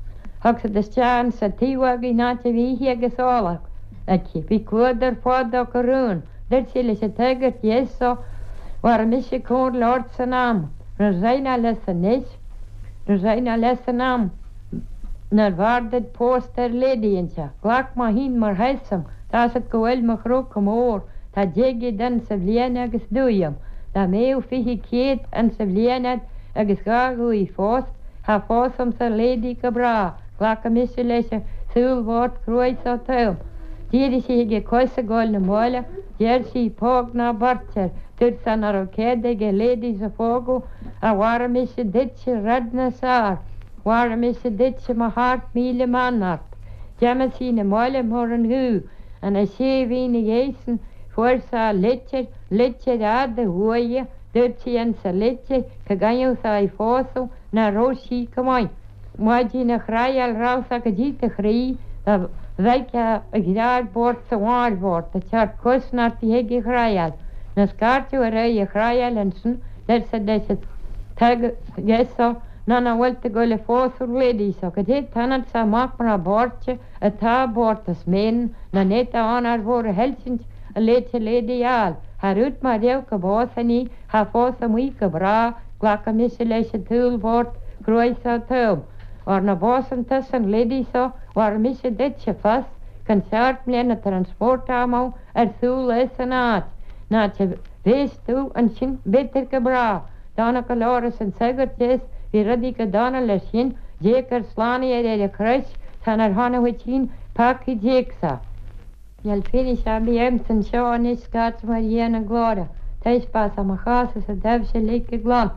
Thug siad isteach insa taobh againn an áit a bhí ithe agus ól aici. Bhí cluadar fada acu araon. Dúirt sí leis an tsagart dheas so, Mhair mise comhairle ort san am. Raghadh leis anois. Raghadh leis san am nár bhfearr duit pósta ar lady anseo. Glac mo thine mar thaosam, tá's a't go bhfuil mo chró chomh mór, tá 10 gcéad ansa bhliain agus dúigh a'm. Dá mbéadh 20 céad ansa bhliain a'd agus dhá dhúigh fós, thá phósfainnse lady go bráth, glacfaidh mise leis an saol bhocht cruaidh so taom. D'éirigh sí chuige cois ag goil 'na bhaile, deir sí, póg ná beirt air, dúirt sé ná raibh cead aige ladies a phógadh, a mhair mise duitse rud níos fearr, mhair mise duitse mo sheacht míle mbeannacht. D'imigh sí 'na bhaile mar an ghaoth. An sé mhí 'na dhiaidh san fuair sé litir, litir fhada uaidh, dúirt sí insa litir go gcaithfeadh sé í phósadh ná raibh sí go maith. Maidin a chraidheáil raibh sé go dtí do chroí dá bhfeicfeá a dhreáir bocht 's a mháthair bhocht ag teacht cosnochta chuig a chraidheáil. Nuair scairteadh ar aghaidh a chraidheáil ansin deir siad leis an tsagart so ná ná bhfuil tú ag goil a phósadh an lady so go dté t-ionad so amach mná boirte atá bocht is méan ná néata ann ar mhór a thuillsint a léite lady fháil. Thar út má raibh go bpósfainn í thá phósfadh í go bráth Glacfaidh mise leis an tsaol bhocht cruaidh so taom. Mara bpósann tusa an lady so, mhair mise duitse fos chun seacht mbliana transport amú ar siúl as an áit. An áit a bhéas tú ansin b'fhéidir go bráth. Dona go leor arsa an sagart deas, bhí rudaí go dona leis sin, Dé gur slánaigh ar ar an chrois, tá nár tháinig dhuit féin peacaí d'éagsa. Níl fianaise ar bith agamsa anseo anois scairte mar Dhia na glóire, taispeánfad mo chás is a dtaibhse uilig go glan.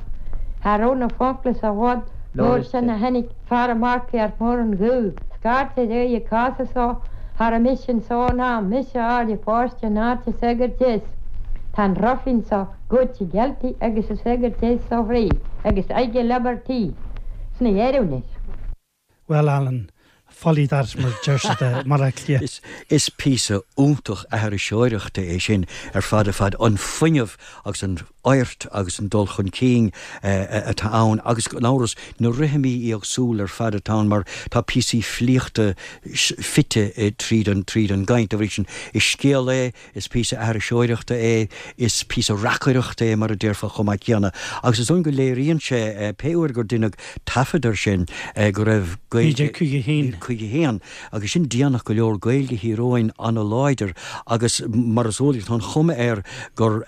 Cha raibh na focla sa bhfad labhair sin a tháinig fear ag marcaíocht mór an ghaoth. scairt ar aghaidh ag casadh so, cha raibh mise anso ná mise a fháil ag páiste in áit an sagairt deas. Tá an ruifín so goidte gealltaí agus an sagart deas so fríd agus aige leabartaí sna dheireadh anois. Bhuel, Alan, folly that mar a deir siad i mBaile Átha Cliath. Is píosa iontach aithriseoireachta é sin ar fad ar fad, an fuinneamh agus an fhoirt agus an dul chun cinn atá ann agus gan amhras na rithimí éagsúla ar fad atá ann mar tá píosaí filíochta fite tríd an tríd an gcaint. Dá bhrí sin, is scéal é Is píosa aithriseoireachta é, is píosa reacaireachta é mar a déarfá chomh maith céanna. Agus is dóigh go léiríonn sé, pé uair gur deineadh taifead air sin, go raibh Gaeilge. 1951. 51, agus sin déanach go leor, Gaeilge Thír Eoghain an-láidir agus mar is eol duit tá an chuma air gur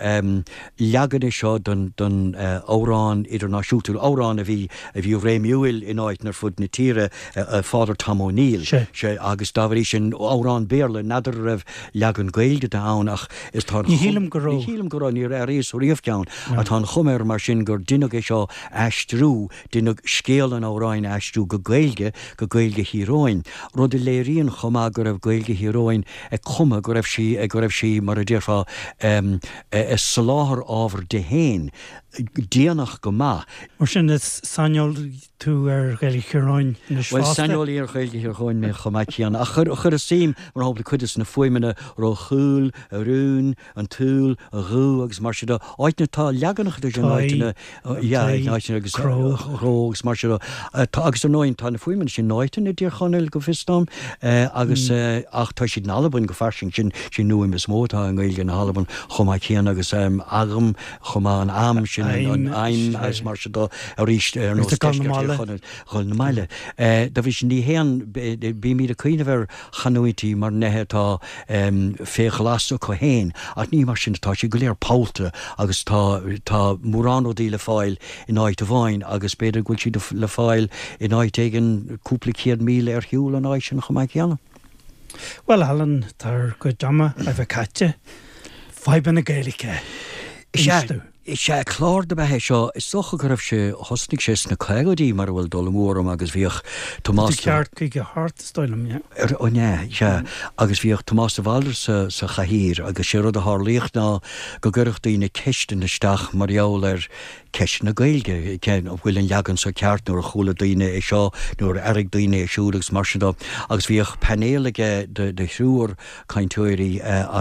leagan é seo den amhrán idirnáisiúnta, amhrán a bhí a bhí réimiúil in áiteanna ar fud na tíre, Father Tom O'Neill. Sea, agus dá bhrí sin, amhrán Béarla, n'fheadar an raibh leagan Gaeilge de ann ach is tá an Ní shílim go raibh. Ní shílim go raibh, níor airíos riamh ceann. Ach tá an chuma air mar sin gur deineadh é seo a aistriú, deineadh scéal an amhráin a aistriú go Gaeilge, go Gaeilge Thír Eoghain, rud a léiríonn chomh maith go raibh Gaeilge Thír Eoghain ag cumadh, go raibh sí, go raibh sí, mar a déarfá, ag soláthar ábhar di féin, déanach go maith. Mar sin is saineolaí tú ar Ghaeilge Thír Eoghain anois Bhuel, fosta. saineolaí ar Ghaeilge Thír Eoghain mé chomh maith céanna. Ach chuir, chuireas suim, mar shampla, cuid de na fuaimeanna ro chúl, a rún, an tsúil, a dhú agus mar sin de, áiteanna, tá leaganacha de sin in áiteanna, yeah, in áiteanna agus cró, cró agus mar sin de. Tá, agus ar ndóigh, tá na fuaimeanna sin in áiteanna i dTír Chonaill go bhfios dom, agus, ach tá siad in Albain go fairsing, sin, sin an fhuaim is mó atá i nGaeilge na hAlban chomh maith céanna agus agam, chomh maith an am sin an aidhm agus mar sin de arís ar nós deisceart Thír Chonaill dhul na maille. Dá bhrí sin ní haon bímid ag cuimhneamh ar chanúintí mar neithe atá fé ghlas acu féin ach ní mar sin atá siad go léir pollta agus tá tá mórán rudaí le fáil in áit amháin agus b'fhéidir go bhfuil siad le fáil in áit éigin cúpla 100,000 ar shiúl ón áit sin chomh maith céanna. Bhuel, Alan, tá ár gcuid ama a bheith caite. Fadhbanna Gaeilge. Is ea, is ea, clár dob ea é seo. Is dócha go raibh sé, thosnaigh sé sna caogaidí mura bhfuil dul amú orm agus bhíodh Tomás de. Ceart 58, is dóigh liom, yeah. An ea, sea. Agus bhíodh Tomás de Bhaldraithe sa, sa chathaoir agus sé rud a tharlaíodh ná go gcuireadh daoine ceisteanna isteach mar gheall ar ceisteanna Gaeilge, cén, an bhfuil an leagan seo ceart, nuair a chuala daoine é seo, nuair a airigh daoine é siúd agus mar sin de. Agus bhíodh painéal aige de, de thriúr cainteoirí,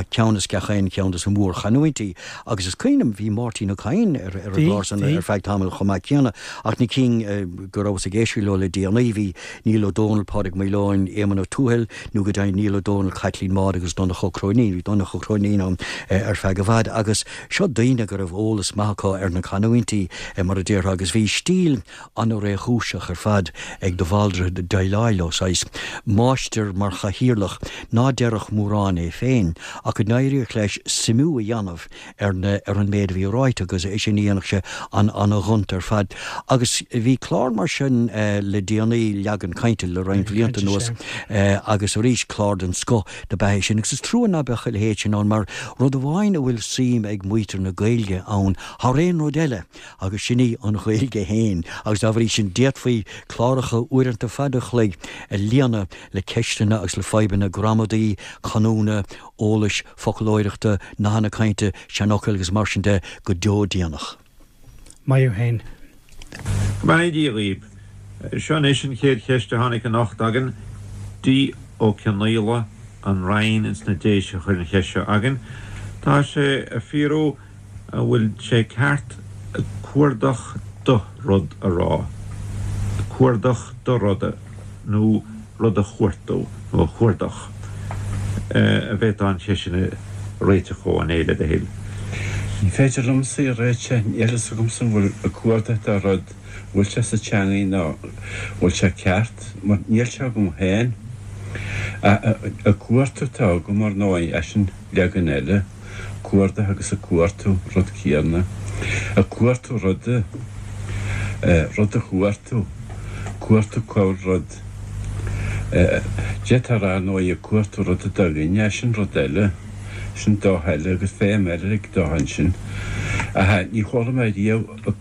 ceann as gach aon cheann de na mórchanúintí. Agus is cuimhin liom, bhí Máirtín Ó Cadhain ar, ar an gclár san ar feadh tamaill chomh maith céanna. Ach na cinn go rabhas ag éisteacht leo le déanaí, bhí Niall Ó Dónaill, Pádraig Maoileoin, Éamonn Ó Tuathail, nó go deimhin Niall Ó Dónaill, Caitlín Maude agus Donncha Ó Cróinín. Bhí Donncha Ó Cróinín ann ar feadh i bhfad. Agus Seo daoine go raibh eolas maith acu ar na canúintí, mar a déarfá, agus bhí stíl an-réchúiseach ar fad ag de Bhaldraithe déileáil leo, saghas máistir mar chathaoirleach ná déarfadh mórán é féin, ach go n-éiríodh leis suimiú a dhéanamh ar na, ar an méid a bhí ráite agus é sin a dhéanfadh sé an-ghonta ar fad. Agus bhí clár mar sin le déanaí, leagan cainte, le roinnt blianta anuas, agus arís clár den scoth dob ea é sin agus is trua ná beadh a leithéid sin ann mar rud amháin a bhfuil suim ag muintir na Gaeilge ann thar aon rud eile agus sin í an Ghaeilge féin agus dá bhrí sin d'fhéadfaí cláracha uaireanta fada an chloig a líonadh le ceisteanna agus le fadhbanna gramadaí, canúna, eolais, foclóireachta, nathanna cainte, seanfhocail agus mar sin de go deo déanach. Maith thú fhéin. Go mbeannaí Dia dhaoibh. Seo anois an chéad cheist a tháinig anocht againn. D. Ó Cionnaola, An Rinn ins na Déise a chuir an cheist seo againn. Tá sé ag fiafraí an bhfuil sé ceart cuardach do rud a rá, cuardach do ruda nó rud a chuartú nó a chuardach. An bhféadfá an cheist sin a réiteach dhomh, a Néill, le do thoil? Ní féidir liomsa í a réiteach, níl fhios agamsa an bhfuil ag cuardach do rud, an bhfuil sé sa teangaidh nó an bhfuil sé ceart, mar níl sé agam féin. Ag cuartú atá agam, ar ndóigh, eisean leagan eile, cuardach agus ag cuartú, rud céanna. Ag cuartú ruda, rud a chuartú, cuartú cá bhfuil rud. D'fhéadfá a rá, ar ndóigh, ag cuartú ruda do dhuine, sin rud eile, sin dóigh eile agus feidhm eile ag do ansin. Ach ní chuala mé riamh ag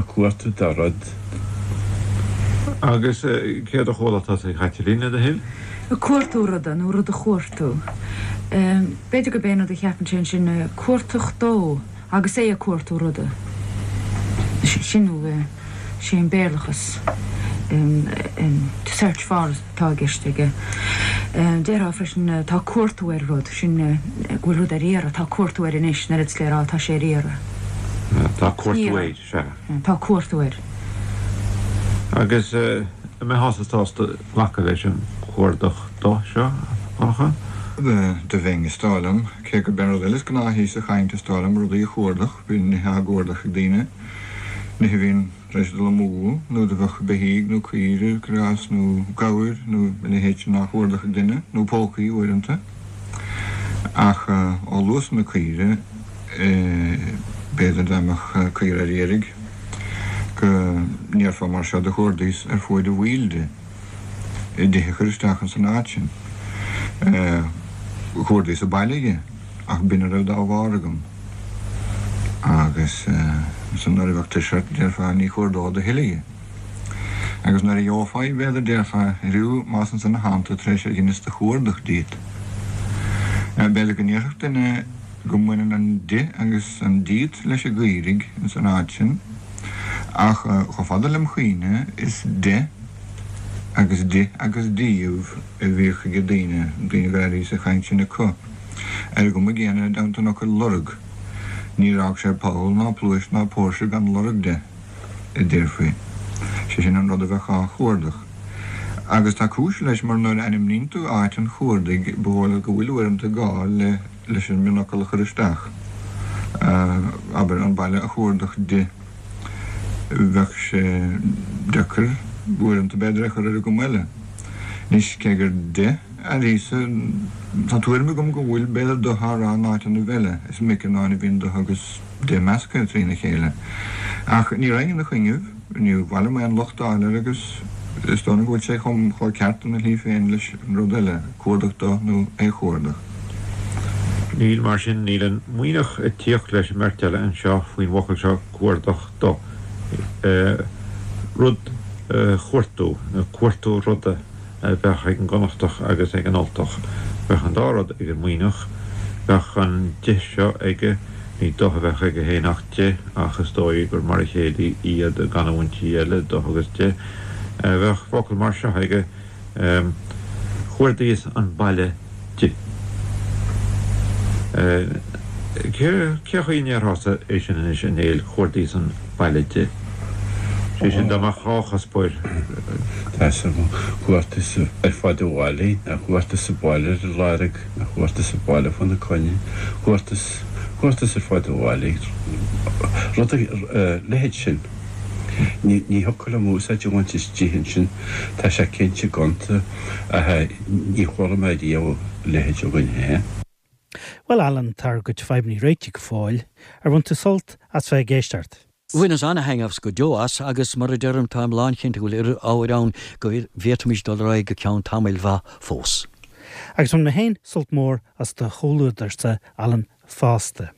cuartú do rud. Agus céard a chuala tusa, a Chaitlín, le do thoil? Ag cuartú ruda, nó rud a chuartú. B'fhéidir gurb é an rud a cheapann sé ansin, cuartach dó, agus é ag cuartú ruda. Sin nó sé an Béarlachas, to search for atá i gceist aige. Déarfá freisin tá cuartú ar rud, sin go bhfuil rud ar iarraidh, tá cuartú air anois, an oiread is le rá tá sé ar iarraidh. Tá cuartú air, sea. Tá cuartú air. Agus an mbeifeása sásta glacadh leis an cuardach do seo, a Dhonncha? Do bheinn, is dóigh liom. Cé gurb é an rud eile is gnáthaí sa chaint, is dóigh liom, rudaí a chuardach, bíonn nithe á gcuardach ag daoine, nithe a bhíonn tar éis dul amú, nó do bheadh beithígh nó caoire, cuir i gcás, nó gabhair nó a leithéid sin á chuardach ag duine, nó pócaí uaireanta. Ach ó luas na caoire, b'fhéidir dá mbeadh caora ar iarraidh go ndéarfá mar seo do chuardaíos ar fuaid a bhaill di. di a chur isteach ins an áit sin. Chuardaíos an baile dhi, ach b'in a raibh dá bharr agam. Agus ansan nuair a bheadh tuirse ort, déarfá, ní chuardód a thuilleadh dhi. Agus nuair a gheofá í, b'fhéidir, déarfá, Airiú, más ansan a thánn tú tar éis ar dheineas do chuardach díot. B'fhéidir go ndéarfadh duine go mbaineann an di agus an díot leis an gcaoirigh ins an áit sin, ach chomh fada lem chuimhne, is de agus di agus díobh a bhíodh ag daoine, daoine go raibh sa chaint sin acu. Ar an gcuma gcéanna i dteannta an fhocail lorg, níor fhág sé poll ná pluais ná póirse gan lorg de, a déarfaí. Sé sin an rud a bheadh á chuardach. Agus tá cúis leis mar nuair a ainmníonn tú áit an chuardaigh ba dhóigh leat go bhfuil uaireanta gá le leis an mionfhocal a chur isteach, abair, an baile a chuardach di. Bheadh sé deacair uaireanta b'fhéidir é a chur ar an gcuma eile. Anois, cé gur de airíosa, tá tuairim agam go bhfuil b'fhéidir do á rá in áiteannaibh eile, is minic in áin a bhíonn do agus de measctha trína chéile. Ach ní raghainn ina choinnibh, níor mhaith liom aon locht a fháil air agus is dóigh liom go bhfuil sé chomh ceart ina shlí féin leis an rud eile, cuardach do nó é chuardach. Níl, mar sin, níl an Muimhneach ag tíocht leis an mbeirt eile anseo faoin bhfocal seo cuardach do. Rud a chuartú, nó cuartú ruda a bheadh ag an gConnachtach agus ag an Ultach. Bheadh an dá rud ag an Muimhneach. Bheadh an de seo aige, ní do a bheadh aige féin ach de, ach is dóigh gur mar a chéile iad i gcanúintí eile, do agus de. Bheadh focal mar seo aige. Chuardaíos an baile di. Cé chaoi a ndéarfása é sin anois, a Néill, chuardaíos an baile di? Sé sin, dá mbeadh dhá chuspóir. Tá 'fhios agam, chuardaíos ar fud an bhaile, nó chuardaíos an baile ar a lorg, nó chuardaíos an baile fána coinne, chuardaíos, chuardaíos ar fud an bhaile, rud a leithéid sin. Ní thiocfadh liom úsáid a bhaint as di ansin, tá sé cinnte gonta, ach ní chuala mé riamh a leithéid againn féin. Bhuel Alan, tá ár gcuid fadhbanna réitigh go fóill. Ar bhain tú sult as bheith ag éisteacht? Bhaineas ana-thaitneamh go deo as agus mar a deirim táim lánchinnte go bhfuil oiread ábhair ann go bhféadfaimis dul ar aghaidh go ceann tamaill mhaith fós. Agus bhain mé féin sult mór as do chomhluadarsa, Alan, fosta.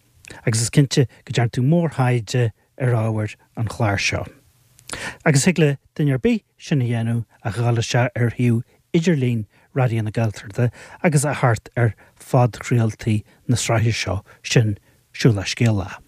Agus is cinnte go dtearn tú mórthaighde ar ábhair an chláir seo. Agus thig le duine ar bith sin a dhéanamh ach a dhul isteach ar shuíomh idirlín Raidió na Gaeltachta agus a theacht ar phodchraoltaí na sraithe seo, sin Siúlach Scéalach.